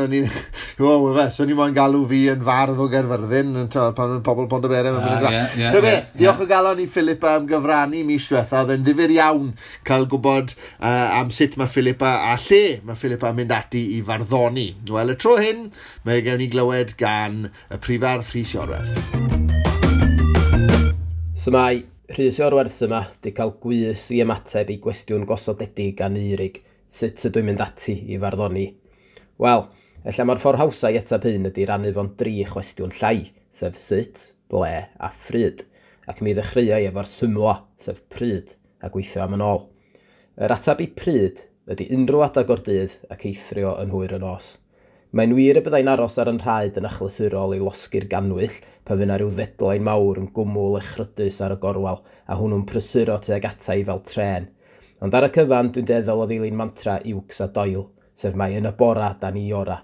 so ni moyn galw fi yn fardd o Gaerfyrddin, pan mae'n pobl Pontyberem yn mynd yn graff. Beth, diolch o galon i Philippa am gyfrannu mis diwetha, oedd e'n ddifyr iawn cael gwybod am sut mae Philippa a lle mae Philippa yn mynd ati i farddoni. Wel, y tro hyn, mae gewn ni glywed gan y prifardd Rhys Iorwerth. So mae Rhys Iorwerth yma di cael gwys i ymateb i gwestiwn gosodedig gan Eurig, sut ydw i'n mynd ati i farddoni? Wel, ella mae'r ffordd hawsa i ateb hyn ydy rannu fo'n 3 chwestiwn llai, sef sut, ble a phryd, ac mi ddechreuai efo'r symlo, sef pryd, a gweithio am yn ôl. Yr ateb i pryd ydy unrhyw adeg o'r dydd ac eithrio yn hwyr y nos. Mae'n wir y byddai'n aros ar yn rhaid yn achlysurol i losgi'r ganwyll pan fydd 'na ryw ddedlain mawr yn gwmwl echrydus ar y gorwel a hwnnw'n prysuro tuag ata i fel trên. Ond ar y cyfan, dwi'n dueddol o ddilyn mantra Iwcs a Doyle, sef mai yn y bora da ni ora.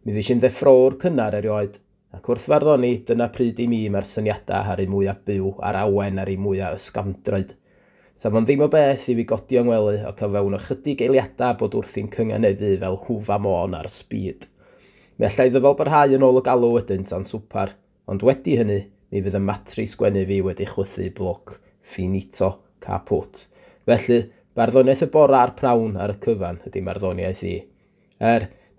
Mi fues i'n ddeffrowr cynnar erioed, ac wrth farddoni, dyna pryd i mi mae'r syniadau ar eu mwyaf byw a'r awen ar eu mwyaf ysgafndroed. Sa fo'n ddim o beth i fi godi o'n ngwely ac o fewn ychydig eiliadau bod wrthi'n cynganeddu fel hwfa môn ar speed. Mi allai ddyfal barhau yn ôl y galw wedyn tan swpar, ond wedi hynny, mi fydd y matri sgwennu fi wedi chwythu bloc finito caput. Felly, barddoniaeth y bora a'r prawn ar y cyfan ydy marddoniaeth i.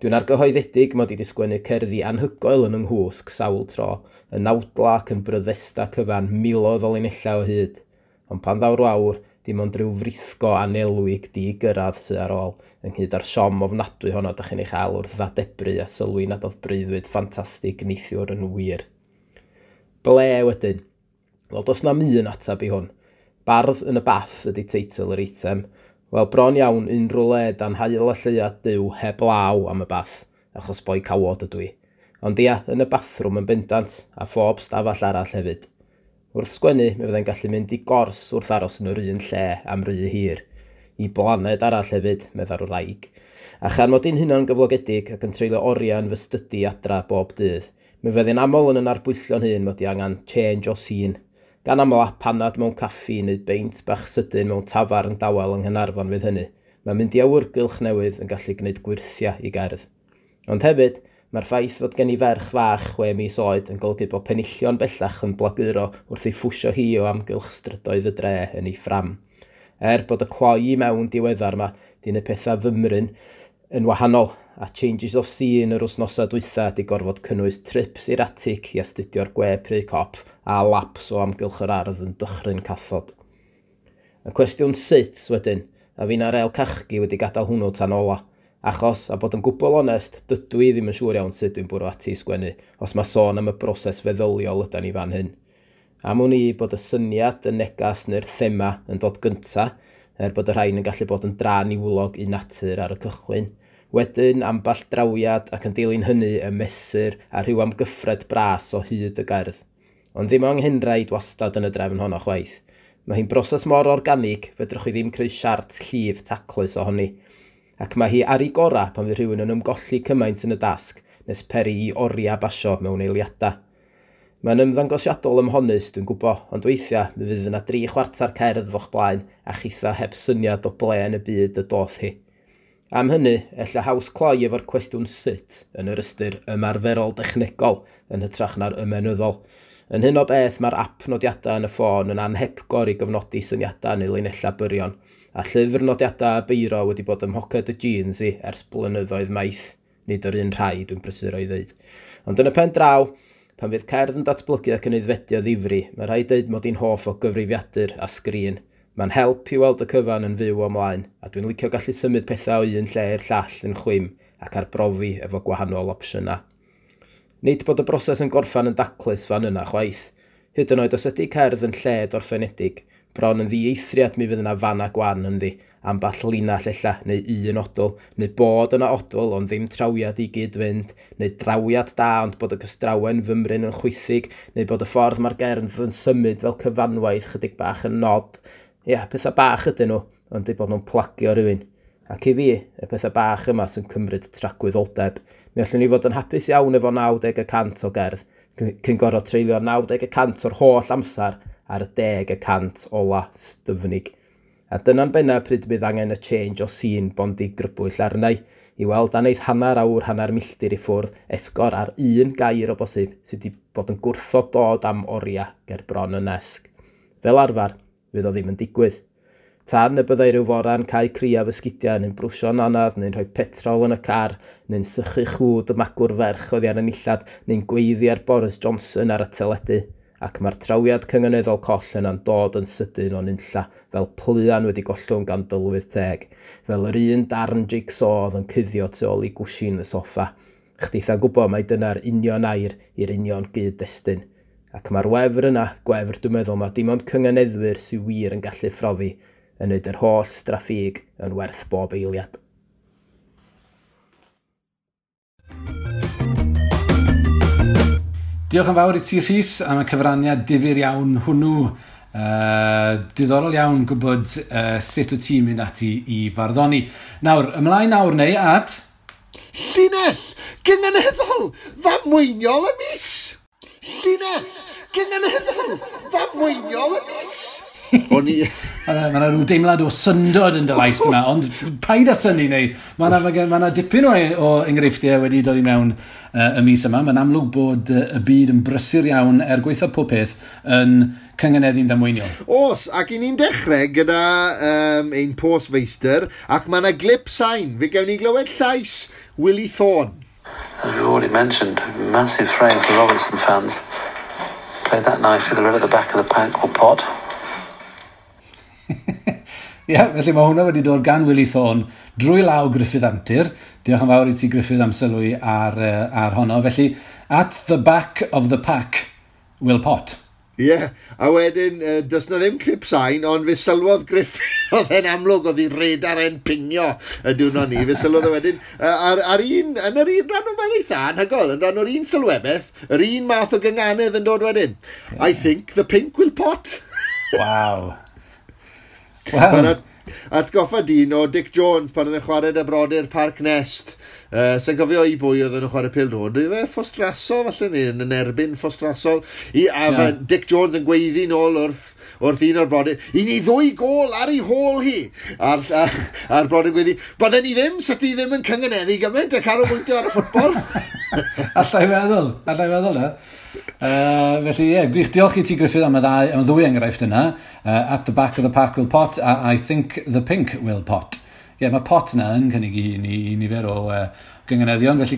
Dwi'n argyhoeddedig mod i wedi sgwennu cerddi anhygoel yn yng nghwsg sawl tro, yn nawdla ac yn bryddesta cyfan miloedd o linellau o hyd. Ond pan ddaw'r wawr, dim ond rhyw frithgo anelwig di-gyrraedd sydd ar ôl, ynghyd â'r siom ofnadwy honno dach chi'n ei chael wrth ddadebru a sylwi nad oedd breuddwyd ffantastig neithiwr yn wir. Ble wedyn? Wel, does na'm un ateb i hwn. Bardd yn y bath ydy teitl yr eitem. Wel, bron iawn unrhyw le dan haul a lleuad Duw heb law am y bath, achos boi cawod ydw i. Ond ia, yn y bathrwm yn bendant, a phob stafell arall hefyd. Wrth sgwennu, mi fyddai'n gallu mynd i gors wrth aros yn yr un lle am ry hir. I blaned arall hefyd, meddai'r wraig. A chan mod i'n hunan gyflogedig ac yn treulio oriau yn fy stydi adra bob dydd, mi fyddai'n aml yn yn arbwyllio'n hun mod i angen change o scene. Gan aml a panad mewn caffi neu beint bach sydyn mewn tafarn dawel yng Nghaernarfon fydd hynny. Mae'n mynd i awyrgylch newydd yn gallu gwneud gwyrthiau i gerdd. Ond hefyd, mae'r ffaith fod gen i ferch fach 6 mis oed yn golygu bod penillion bellach yn blaguro wrth ei phwsio hi o amgylch strydoedd y dre yn ei ffram. Bod y cloi i mewn diweddar yma, di wneud pethau fymryn yn wahanol, a changes of scene yr wythnosau dwytha di gorfod cynnwys trips i'r atig i astudio'r gwe pry cop a laps o amgylch yr ardd yn dychryn cathod. Y cwestiwn sut wedyn, a fi'n ar el cachgi wedi gadael hwnnw tan ola. Achos, a bod yn gwbl onest, dydw i ddim yn siŵr iawn sut dwi'n bwrw ati i sgwennu, os mae sôn am y broses feddyliol ydan ni fan hyn. Am wn i bod y syniad, y negas neu'r thema yn dod gynta, bod y rhain yn gallu bod yn dra niwlog i natur ar y cychwyn. Wedyn, amball drawiad ac yn dilyn hynny y mesur a rhyw amgyffred bras o hyd y gerdd. Ond ddim anghenraid wastad yn y drefn honno chwaith. Mae hi'n broses mor organig, fedrwch chi ddim creu siart llif taclus ohoni. Ac mae hi ar ei gora pan fydd rhywun yn ymgolli cymaint yn y dasg, nes peri i oriau basio mewn eiliadau. Mae'n ymddangosiadol ymhonus, dwi'n gwybod, ond weithiau mi fydd yna 3/4 cerdd o'ch blaen a chitha heb syniad o ble yn y byd y doth hi. Am hynny, ella haws cloi efo'r cwestiwn sut yn yr ystyr ymarferol dechnegol yn hytrach na'r ymenyddol. Yn hyn o beth, mae'r app nodiadau yn y ffôn yn anhepgor i gyfnodi syniadau neu linellau byrion, a llyfr nodiadau a beiro wedi bod ym mhoced y jeans i ers blynyddoedd maith, nid yr un rhai dwi'n prysuro i ddeud. Ond yn y pen draw, pan fydd cerdd yn datblygu ac yn aeddfedu o ddifri, mae rhaid deud mod i'n hoff o gyfrifiadur a sgrin. Mae'n help i weld y cyfan yn fyw ymlaen, a dwi'n licio gallu symud pethau o un lle i'r llall yn chwim ac arbrofi efo gwahanol opsiynau. Nid bod y broses yn gorffan yn daclus fan yna chwaith. Hyd yn oed os ydy cerdd yn lled orffenedig, bron yn ddieithriad mi fydd yna fan a gwan ynddi, amball linell ella, neu un odl, neu bod yna odl ond ddim trawiad i gyd fynd, neu drawiad da ond bod y cystrawen fymryn yn chwithig, neu bod y ffordd mae'r gerdd yn symud fel cyfanwaith chydig bach yn nod. Ia, pethau bach ydyn nhw, ond eu bod nhw'n plagio rhywun. Ac i fi, y pethau bach yma sy'n cymryd tragwyddoldeb. Mi allwn ni fod yn hapus iawn efo 90% o gerdd, cyn gorfod treulio 90% o'r holl amser ar y 10% ola styfnig. A dyna'n benna pryd bydd angen y change o scene bondi grybwyll arnau, i weld aneith hanner awr, hanner milltir i ffwrdd, esgor ar un gair o bosib sydd wedi bod yn gwrthod dod am oriau ger bron y nesg. Fel arfer, fydd o ddim yn digwydd. Tan y byddai rhyw fora'n cael criaf ysgidiau neu'n brwsio'n anodd, neu'n rhoi petrol yn y car, neu'n sychu chwd y magwr ferch oddi ar y nillad, neu'n gweiddi ar Boris Johnson ar y teledu. Ac mae'r trawiad cynganeddol coll yna'n dod yn sydyn o'n unlla, fel pluan wedi gollwng gan dylwydd teg, fel yr un darn jigsaw oedd yn cuddio tu ôl i gwshin y soffa. Chditha'n gwybod mai dyna'r union air i'r union gyd-destun. Ac mae'r wefr yna, gwefr dwi'n meddwl, mae dim ond cynganeddwyr sy'n wir yn gallu phrofi, yn neud yr holl straffig yn werth bob eiliad. Diolch yn fawr i ti, Rhys, am y cyfraniad difyr iawn hwnnw. Diddorol iawn gwybod sut wyt ti'n mynd ati i farddoni. Nawr, ymlaen nawr neu at... Llinell gynganeddol ddamweiniol y mis! Llinell gynganeddol ddamweiniol y mis! O'n i... Mae yna rhyw deimlad o syndod yn dy lais yma, ond paid â synnu neu. Mae yna dipyn o enghreifftiau wedi dod i mewn y mis yma. Mae'n amlwg bod y byd yn brysur iawn er gwaetha pob peth yn cynganeddu'n ddamweiniol. Os, ac i ni'n dechrau gyda ein postfeistr, ac mae yna glip sain. Fe gewn ni glywed llais Willie Thorne. As we've already mentioned, massive frame for Robertson fans. Played that nicely, the red at the back of the pack will pot. Ie, yeah, felly mae hwnna wedi dod gan Willie Thorne drwy law Gruffydd Antur. Diolch yn fawr i ti, Gruffydd, am sylwi ar honno. Felly, at the back of the pack will pot. Ie, yeah, a wedyn, does na ddim clip sain, ond fe sylwodd Gruffydd, oedd e'n amlwg, oedd hi radar e'n pingio y diwrnod ni, fe sylwodd e wedyn, ar un, yn yr un rhan o mae'n eitha anhygoel, yn rhan o'r un sylwebaeth, yr un math o gynganedd yn dod wedyn. Yeah. I think the pink will pot. Wow. Wel. Atgoffa dyn o Dick Jones pan oedd e'n chwarae dy brodyr Parc Nest. Sa'n cofio i bwy oedd yn chwarae pêl-droed. Fe Ffostrasol falle neu yn erbyn Ffostrasol. A Dick Jones yn gweiddi nôl wrth un o'r brodyr. I ni 2 gôl ar ei hôl hi. A'r brodyr gweiddi, bydden ni ddim, sa ti ddim yn cynganeddu gymaint a canolbwyntio ar y ffwtbol. Allai feddwl na. Felly ie, yeah, gwych, diolch i ti, Gruffydd, am y ddwy enghraifft yna. At the back of the pack will pot, a I think the pink will pot. Ie, yeah, mae pot yna yn cynnig i ni nifer o gynganeddion, felly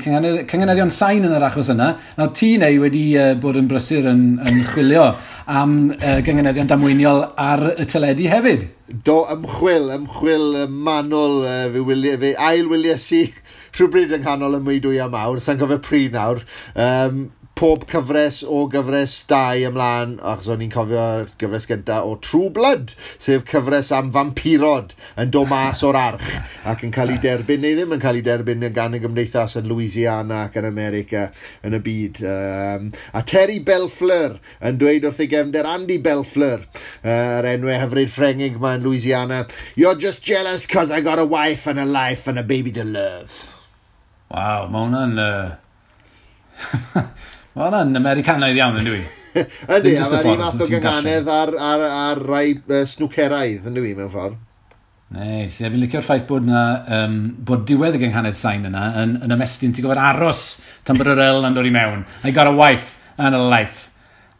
cynganeddion sain yn yr achos yna. Nawr ti neu wedi bod yn brysur yn chwilio am gynganeddion damweiniol ar y teledu hefyd. Do, ymchwil manwl, fe ail-wylies i rhywbryd yng nghanol y meudwya mawr, sa'n cofio pryd nawr. Pob cyfres o gyfres 2 ymlaen, achos o'n i'n cofio'r gyfres gyntaf o True Blood, sef cyfres am vampirod yn dod mas o'r arch ac yn cael ei derbyn, neu ddim yn cael ei derbyn gan y gymdeithas yn Louisiana ac yn America yn y byd. A Terry Bellefleur yn dweud wrth ei gefnder Andy Bellefleur, yr enwau hyfryd Ffrengig ma yn Louisiana, "You're just jealous cause I got a wife and a life and a baby to love." Waw, mae hwnna'n... Mae hwnna'n Americanaidd iawn, yn dwi? Ydy, a mae'r un math o gynghanedd ar rai snwceraidd, yn dwi, mewn ffordd. Neis, ie, fi'n licio'r ffaith bod na, bod diwedd y gynghanedd sain yna yn ymestyn, ti'n gofod aros tan bod yr L yn dod i mewn. I got a wife and a life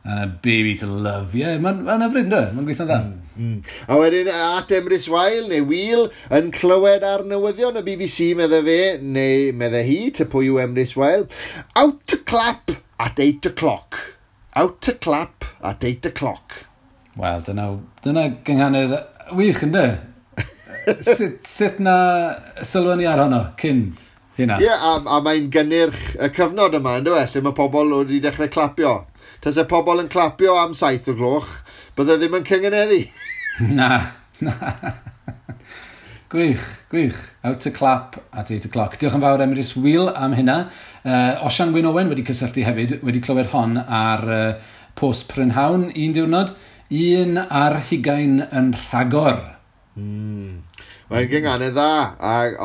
and a baby to love. Ie, yeah, mae'n ma hyfryd, ynddo? Mae'n gweithio'n dda. A wedyn, at Emrys Weil, neu Wil, yn clywed ar newyddion y BBC, medde fe, neu medde hi, ty pwy yw Emrys Weil, out to clap at 8 o'clock. Out to clap at 8 o'clock. Wel, dyna gynghanedd wych, ynddo? Sut na sylwn ni ar honno cyn hynna? Ie, yeah, a mae'n gynnyrch y cyfnod yma, ynddo e, lle mae pobl wedi dechrau clapio. Tase pobl yn clapio am 7 o gloch, bydde ddim yn cyngeneddu. Na. Gwych, gwych. Out to clap at 8 o'clock. Diolch yn fawr Emrys Wil am hynna. Osian Wyn Owen wedi cysylltu hefyd, wedi clywed hon ar post prynhawn un diwrnod. 21 yn rhagor. Mae'n gynghanedd dda,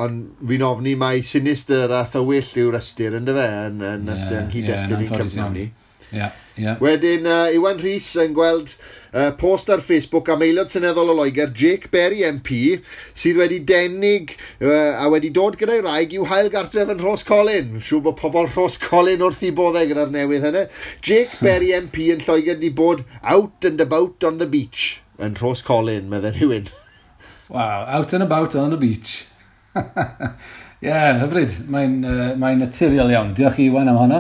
ond fi'n ofni mai sinister a thywyll yw'r ystyr, ynddo fe, yn ystyr yng nghyd-destun i'n cyfnod ni. Yeah, yeah. Wedyn, Iwan Rhys yn gweld post ar Facebook am aelod seneddol o Loegr, Jake Berry MP, sydd wedi denig a wedi dod gyda'i wraig i'w hail gartref yn Rhoscolyn. Siŵr bod pobl Rhoscolyn wrth i boddau gyda'r newydd hynny. Jake Berry MP yn Lloegr wedi bod out and about on the beach yn Rhoscolyn, meddai rhywun. Wow, out and about on the beach. Ie, yeah, hyfryd. Mae'n naturiol iawn. Diolch i Iwan am honno.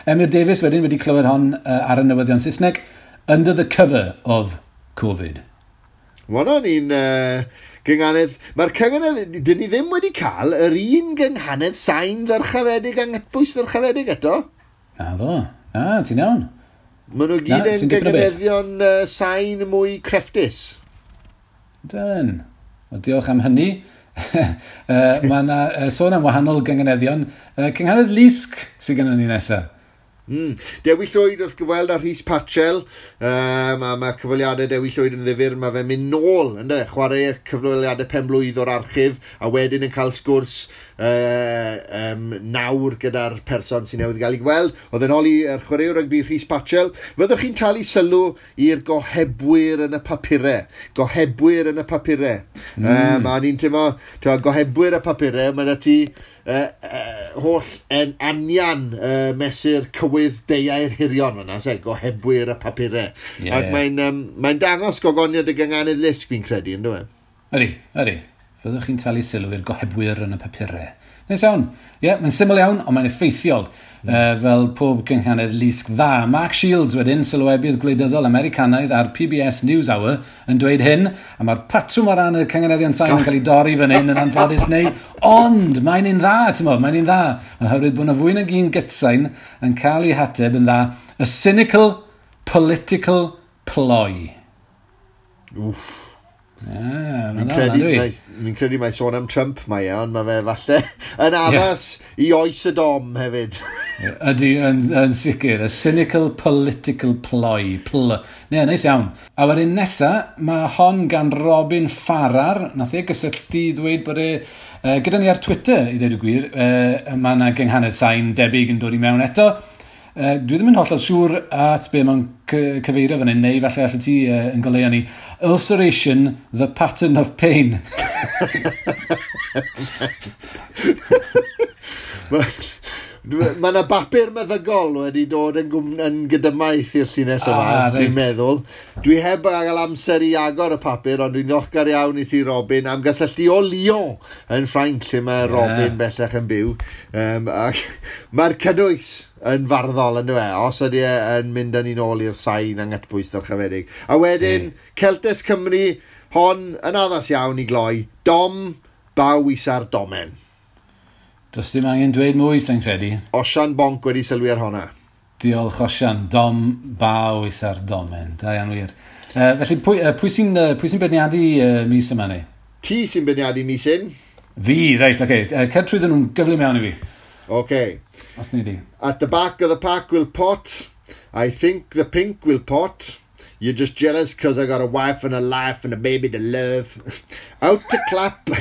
Emyr Davies wedyn wedi clywed hon ar y newyddion Saesneg. Under the cover of Covid. Mae hwnna'n un gynghanedd. Mae'r cynghanedd, dyn ni ddim wedi cael yr un gynghanedd sain ddyrchafedig a nghytbwys ddyrchafedig eto. Na ddo. Na, ti'n iawn. Maen nhw gyd yn gynghaneddion sain mwy crefftus. Dyn. Wel, diolch am hynny. Mae yna sôn am wahanol gynghaneddion. Cynghanedd Lusg sydd gennym ni nesaf. Dewi Llwyd wrth gyfweld â Rhys Patchell. Mae cyfweliadau Dewi Llwyd yn ddifyr. Mae fe'n mynd nôl, ynde? Chwarae cyfweliadau penblwydd o'r archif a wedyn yn cael sgwrs nawr gyda'r person sy'n newydd gael ei gweld. Oedd yn ôl i'r chwaraewr rygbi Rhys Patchell. Fyddwch chi'n talu sylw i'r gohebwyr yn y papurau. Gohebwyr yn y papurau. A ni'n teimlo, gohebwyr y papurau, mae 'da ti holl yn anian mesur cywydd deuai'r hirion fyna, se, gohebwyr y papurau. Yeah. Ac mae'n dangos gogoniad y gynghanedd lusg, fi'n credu, ynddo e? Ydy, ydy. Fyddwch chi'n talu sylw i'r gohebwyr yn y papurau. Neis iawn. Ie, yeah, mae'n syml iawn, ond mae'n effeithiol. Fel pob gynghanedd lusg dda. Mark Shields wedyn, sylwebydd gwleidyddol Americanaidd ar PBS NewsHour, yn dweud hyn, a mae'r patrwm o ran y cynghaneddion sain yn cael ei dorri fan hyn yn anffodus neu, ond mae'n un dda, ti'n mo, mae'n un dda, oherwydd bod yna fwy nag un gytsain yn cael ei hateb yn dda, a cynical political ploy. Wff. Fi'n credu mai sôn am Trump mae e, ond mae fe falle yn addas i oes y dom hefyd. Ydy, yn sicr. A cynical political ploy. Ne, neis iawn. A wedyn nesa, mae hon gan Robin Farrar. Nath e gysylltu i ddweud bod e, gyda ni ar Twitter, i ddweud y gwir, mae yna gynghanedd sain debyg yn dod i mewn eto. Dwi ddim yn hollol siŵr at be mae'n cyfeirio fan hyn, neu falle allet ti yn goleuo ni. Ulceration, the pattern of pain. Mae yna bapur meddygol wedi dod yn gydymaith i'r llinell yma, dwi'n meddwl. Dwi heb gael amser i agor y papur, ond dwi'n ddiolchgar iawn i ti, Robin, am gysylltu o Lyon yn Ffrainc, lle mae Robin bellach yn byw. Ac mae'r cynnwys yn farddol, yn e, os ydy e yn mynd â ni'n ôl i'r sain anghytbwys ddyrchafedig. A wedyn, Celtes Cymru, hon yn addas iawn i gloi, Dom, baw isa'r domen. Does dim angen dweud mwy, sa'n credu. Osian Bonc wedi sylwi ar honna. Diolch, Osian. Dom, baw isa'r domen. Da iawn wir. Felly, pwy sy'n beirniadu mis yma ni? Ti sy'n beirniadu mis hyn. Fi, reit, oce. Okay. Cer trwyddyn nhw'n gyflym iawn i fi. Oce. Os ni di. At the back of the pack will pot. I think the pink will pot. You're just jealous because I got a wife and a life and a baby to love. Out to clap.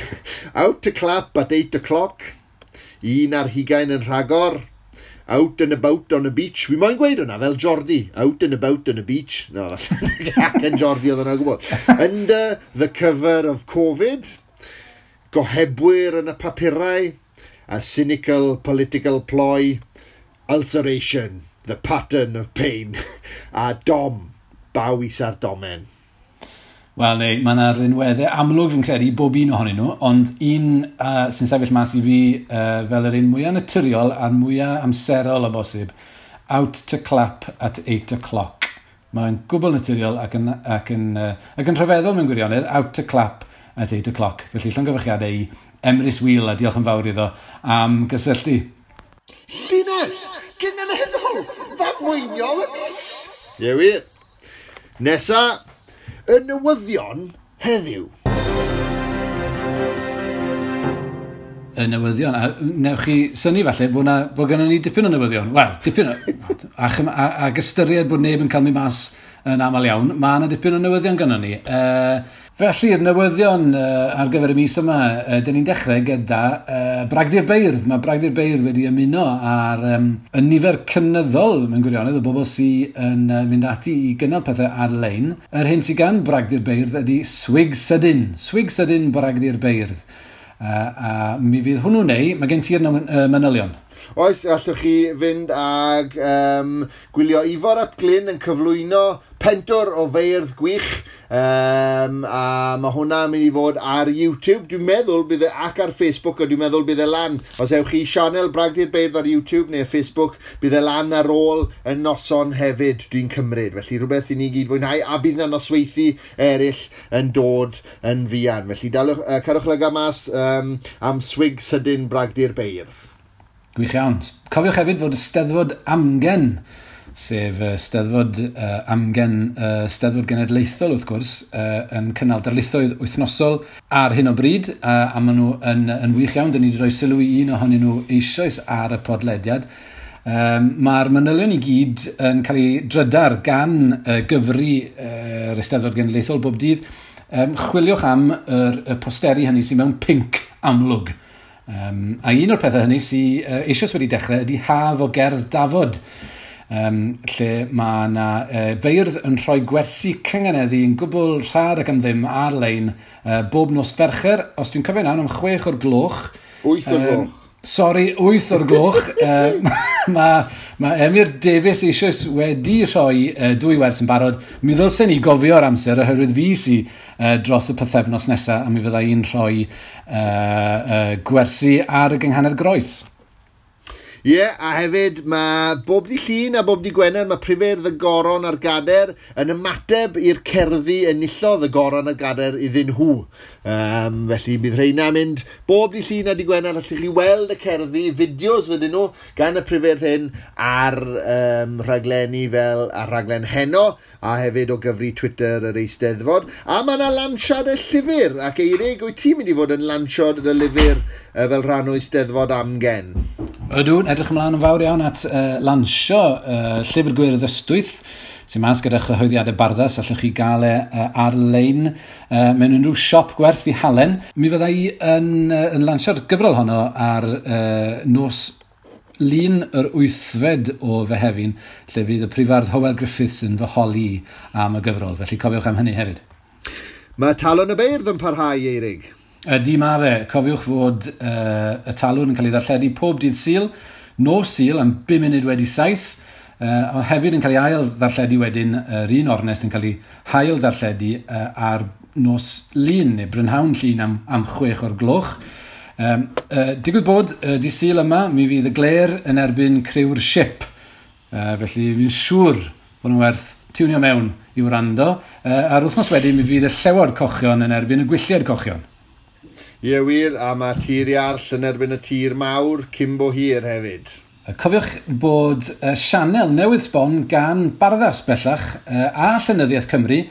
Out to clap at 8 o'clock. 21 yn rhagor. Out and about on the beach. Fi moyn gweud hwnna fel Jordi. Out and about on the beach. No, acen Jordi oedd hwnna gwybod. Under the cover of Covid. Gohebwyr yn y papurau. A cynical political ploy. Ulceration. The pattern of pain. A dom. Baw isa'r domen. Wel, neu, mae yna rinweddau amlwg fi'n credu i bob un ohonyn nhw, ond un sy'n sefyll mas i fi fel yr un mwyaf naturiol a'r mwyaf amserol o bosib, out to clap at 8 o'clock. Mae'n gwbl naturiol ac yn rhyfeddol mewn gwirionedd, out to clap at 8 o'clock. Felly llongyfarchiadau i Emrys Wheel a diolch yn fawr iddo am gysylltu. Llinell! Gynganeddol! Ddamweiniol y mis! Ie wir. Nesa, y newyddion heddiw. Y newyddion. A newch chi synnu falle bod gennym ni dipyn o newyddion. Wel, dipyn o... Ac ystyried bod neb yn cael mynd mas yn aml iawn, mae yna dipyn o newyddion gynnon ni. Felly'r newyddion ar gyfer y mis yma, dyn ni'n dechrau gyda Bragdy'r Beirdd. Mae Bragdy'r Beirdd wedi ymuno ar y nifer cynyddol mewn gwirionedd o bobl sydd yn mynd ati i gynnal pethau ar-lein. Yr hyn sydd gan Bragdy'r Beirdd ydy Swig Sydyn. Swig Sydyn Bragdy'r Beirdd. A mi fydd hwnnw neu, mae gen ti'r manylion. Oes, allwch chi fynd ag gwylio Ifor ap Glyn yn cyflwyno pentwr o feirdd gwych. A mae hwnna'n mynd i fod ar YouTube, dwi'n meddwl bydd e, ac ar Facebook, a dwi'n meddwl bydd e lan. Os ewch chi sianel Bragdy'r Beirdd ar YouTube neu Facebook, bydd e lan ar ôl y noson hefyd, dwi'n cymryd. Felly rhywbeth i ni gyd fwynhau, a bydd yna nosweithi eraill yn dod yn fuan. Felly dalwch, cadwch lygad mas am swig sydyn Bragdy'r Beirdd. Gwych iawn. Cofiwch hefyd fod y Steddfod Amgen, sef Steddfod Amgen, Steddfod Genedlaethol wrth gwrs, yn cynnal darlithoedd wythnosol ar hyn o bryd, a maen nhw yn wych iawn. Dyn ni wedi rhoi sylw i un ohonyn nhw eisoes ar y podlediad. Mae'r manylion i gyd yn cael ei drydar gan gyfri yr Eisteddfod Genedlaethol bob dydd. Chwiliwch am y posteri hynny sydd mewn pinc amlwg. A un o'r pethau hynny sydd eisoes wedi dechrau ydy Haf o Gerdd Dafod, lle mae yna feirdd yn rhoi gwersi cynganeddu yn gwbl rhad ac am ddim ar-lein bob nos Fercher, os dwi'n cofio'n iawn, am 6 o'r gloch. 8 o'r gloch. Sori, 8 o'r gloch. Mae Emyr Davies eisoes wedi rhoi dwy wers yn barod. Mi ddylsen ni gofio'r amser oherwydd fi sy dros y pythefnos nesaf a mi fydda i'n rhoi gwersi ar y gynghanedd groes. Ie, yeah, a hefyd mae bob dydd Llun a bob dydd Gwener mae Prifeirdd y Goron a'r Gader yn ymateb i'r cerddi enillodd y Goron a'r Gader iddyn nhw. Felly bydd rheina mynd bob dydd Llun a dydd Gwener, allwch chi weld y cerddi, fideos fydyn nhw gan y prifeirdd hyn ar rhaglenni fel ar rhaglen Heno a hefyd o gyfri Twitter yr Eisteddfod. A mae yna lansiad y llyfr, ac Eirig, wyt ti'n mynd i fod yn lansiad y lyfr fel rhan o Eisteddfod Amgen? Ydw, edrych ymlaen yn fawr iawn at lansio Llyfr Gwyrdd Ystwyth, sy'n mas gyda chyhoeddiadau Barddas, allwch chi gael e ar-lein mewn unrhyw siop gwerth i halen. Mi fydda i yn lansio'r gyfrol honno ar nos Lun yr 8fed o Fehefin, lle fydd y prifardd Hywel Griffiths yn fy holi am y gyfrol. Felly cofiwch am hynny hefyd. Mae Talwrn y Beirdd yn parhau, Eirig. Ydy ma fe. Cofiwch fod y Talwrn yn cael ei ddarlledu pob dydd Sul, nos Sul am 7:05, ond hefyd yn cael ei ail ddarlledu wedyn, yr un ornest yn cael ei hail ddarlledu ar nos Lun, neu brynhawn Llun am 6 o'r gloch. Digwydd bod, dydd Sul yma, mi fydd y Glêr yn erbyn criw'r Ship. Felly fi'n siŵr bod nhw'n werth tiwnio mewn i wrando. A'r wythnos wedyn mi fydd y Llewod Cochion yn erbyn y Gwylliaid Cochion. Ie wir, a mae Tir Iarll yn erbyn y Tir Mawr cyn bo hir hefyd. Cofiwch bod sianel newydd sbon gan Barddas bellach a Llenyddiaeth Cymru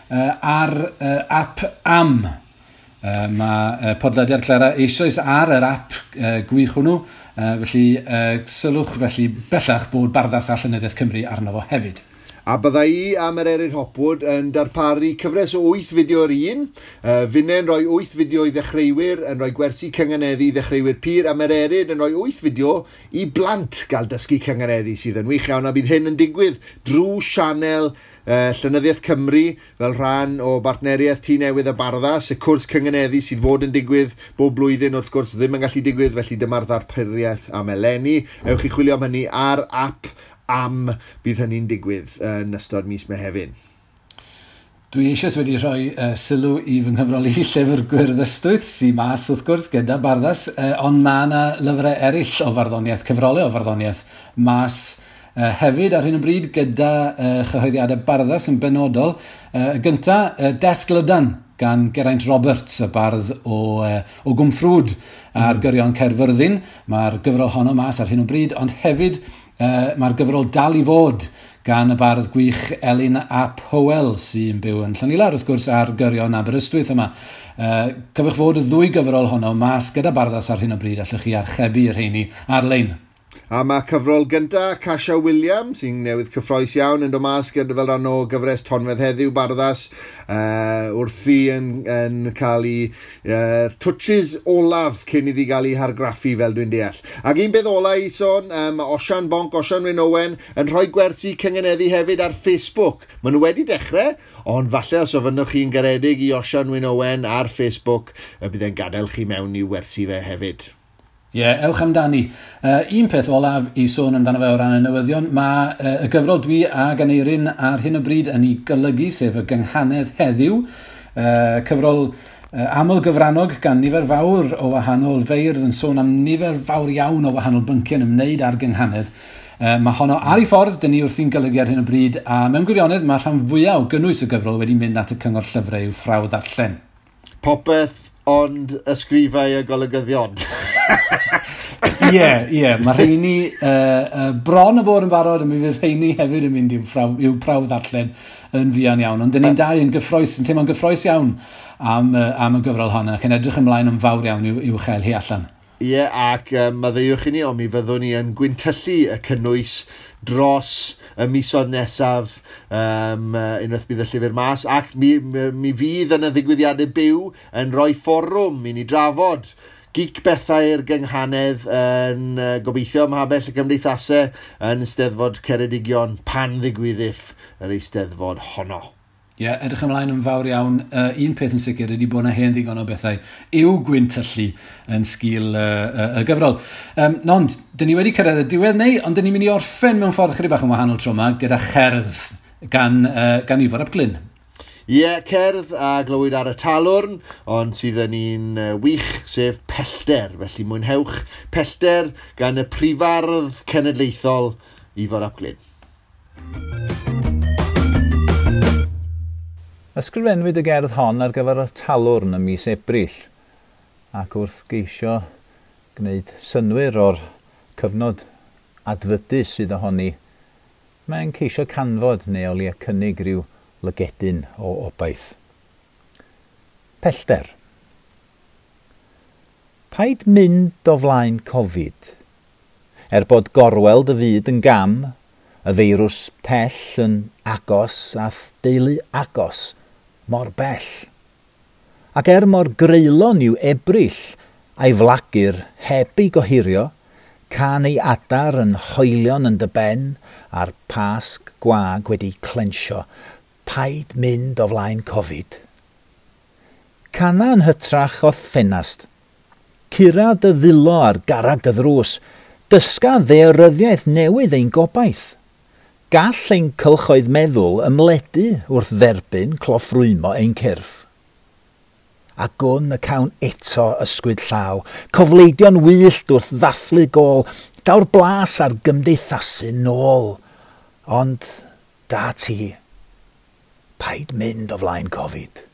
ar app Am. Mae podlediad Clera eisoes ar yr app gwych hwnnw, felly sylwch felly bellach bod Barddas a Llenyddiaeth Cymru arno fo hefyd. A bydda i a Mererid Hopwood yn darparu cyfres o 8 fideo yr un. Finne'n rhoi 8 fideo i ddechreuwyr, yn rhoi gwersi cynganeddu i ddechreuwyr pur, a Mererid yn rhoi 8 fideo i blant gael dysgu cynganeddu, sydd yn wych iawn, a bydd hyn yn digwydd drwy sianel Llenyddiaeth Cymru fel rhan o bartneriaeth Tŷ Newydd a Barddas, y cwrs cynganeddu sydd fod yn digwydd bob blwyddyn wrth gwrs ddim yn gallu digwydd, felly dyma'r ddarpariaeth am eleni. Ewch i chwilio am hynny ar app am bydd hynny'n digwydd yn ystod mis Mehefin. Dwi eisoes wedi rhoi sylw i fy nghyfrol i Llyfr Gwyrdd Ystwyth, sy'n mas wrth gwrs gyda Barddas, ond mae yna lyfrau eraill o farddoniaeth, cyfrolau o farddoniaeth mas hefyd ar hyn o bryd gyda chyhoeddiadau Barddas yn benodol. Y gynta, Desg Lydan gan Geraint Roberts, y bardd o Gwmffrwd ar gyrion Caerfyrddin. Mae'r gyfrol honno mas ar hyn o bryd, ond hefyd mae'r gyfrol Dal i Fod gan y bardd gwych Elin ap Hywel, sy'n byw yn Llanilar, wrth gwrs, ar gyrion Aberystwyth yma. Cofiwch fod y ddwy gyfrol honno mas gyda Barddas ar hyn o bryd, allwch chi archebu y rheini ar-lein. A mae cyfrol gynta Casia Williams, sy'n newydd cyffroes iawn, yn dod mas gyda fel rhan o gyfres Tonfedd Heddiw Barddas, wrthi yn cael ei touches olaf cyn iddi gael ei hargraffu, fel dwi'n deall. Ac un beth ola i sôn, mae Osian Bonc, Osian Wyn Owen, yn rhoi gwersi cynganeddu hefyd ar Facebook. Maen nhw wedi dechrau, ond falle os ofynnwch chi'n garedig i Osian Wyn Owen ar Facebook, y bydd e'n gadael chi mewn i'w wersi fe hefyd. Ie, yeah, ewch amdani. Un peth olaf i sôn amdano fe o ran y newyddion, mae y gyfrol dwi ag Aneirin ar hyn o bryd yn ei golygu, sef y Gynghanedd Heddiw, cyfrol aml gyfrannog gan nifer fawr o wahanol feirdd yn sôn am nifer fawr iawn o wahanol bynciau yn ymwneud â'r gynghanedd. Mae honno ar ei ffordd, dyn ni wrthi'n golygu ar hyn o bryd, a mewn gwirionedd mae rhan fwyaf o gynnwys y gyfrol wedi mynd at y cyngor llyfrau i'w ffrawd ddarllen. Popeth ond ysgrifau a golygyddion. Ie, mae rheini bron y bod yn barod, a mi fydd rheini hefyd yn mynd i'w prawf ddarllen yn fuan iawn. Ond dyn ni'n dau yn gyffroes, yn teimlo'n gyffroes iawn am y gyfrol hon, ac yn edrych ymlaen yn fawr iawn i'w chael hi allan. Ie, ac maddeuwch i ni, ond mi fyddwn ni yn gwyntyllu y cynnwys dros y misoedd nesaf, unwaith bydd y llyfr mas, ac mi fydd yn y ddigwyddiadau byw yn rhoi fforwm i ni drafod geek bethau'r gynghanedd yn gobeithio ym Mhabell y Cymdeithasau yn Eisteddfod Ceredigion pan ddigwyddiff yr Eisteddfod honno. Ie, yeah, edrych ymlaen yn fawr iawn. Un peth yn sicr ydy bod yna hen ddigon o bethau i'w gwyntyllu yn sgil y gyfrol. Ond, dyn ni wedi cyrraedd y diwedd neu, ond dyn ni'n mynd i orffen mewn ffordd chydig bach yn wahanol tro yma gyda cherdd gan Ifor ap Glyn. Ie, yeah, cerdd a glywyd ar y talwrn, ond sydd yn un wych, sef Pellter. Felly mwynhewch Pellter gan y prifardd cenedlaethol Ifor ap Glyn. Ysgrifennwyd y gerdd hon ar gyfer y talwrn ym mis Ebrill, ac wrth geisio gwneud synnwyr o'r cyfnod adfydus sydd ohoni, mae'n ceisio canfod neu o leia cynnig rhyw lygedyn o obaith. Pellter. Paid mynd o flaen Covid. Er bod gorweld y fyd yn gam, y feirws pell yn agos a deulu agos mor bell. Ac er mor greulon yw Ebrill a'i flagur heb ei gohirio, can ei adar yn hoelion yn dy ben a'r pasg gwag wedi clensio, paid mynd o flaen Covid. Cana yn hytrach o ffenast. Cura dy ddilo ar garag dy ddrws, dysga ddaearyddiaeth newydd ein gobaith. Gall ein cylchoedd meddwl ymledu wrth dderbyn cloffrwymo ein cyrff. A gwn y cawn eto ysgwyd llaw, cofleidio'n wyllt wrth ddathlu gôl, daw'r blas ar gymdeithasu nôl. Ond da ti, paid mynd o flaen Covid.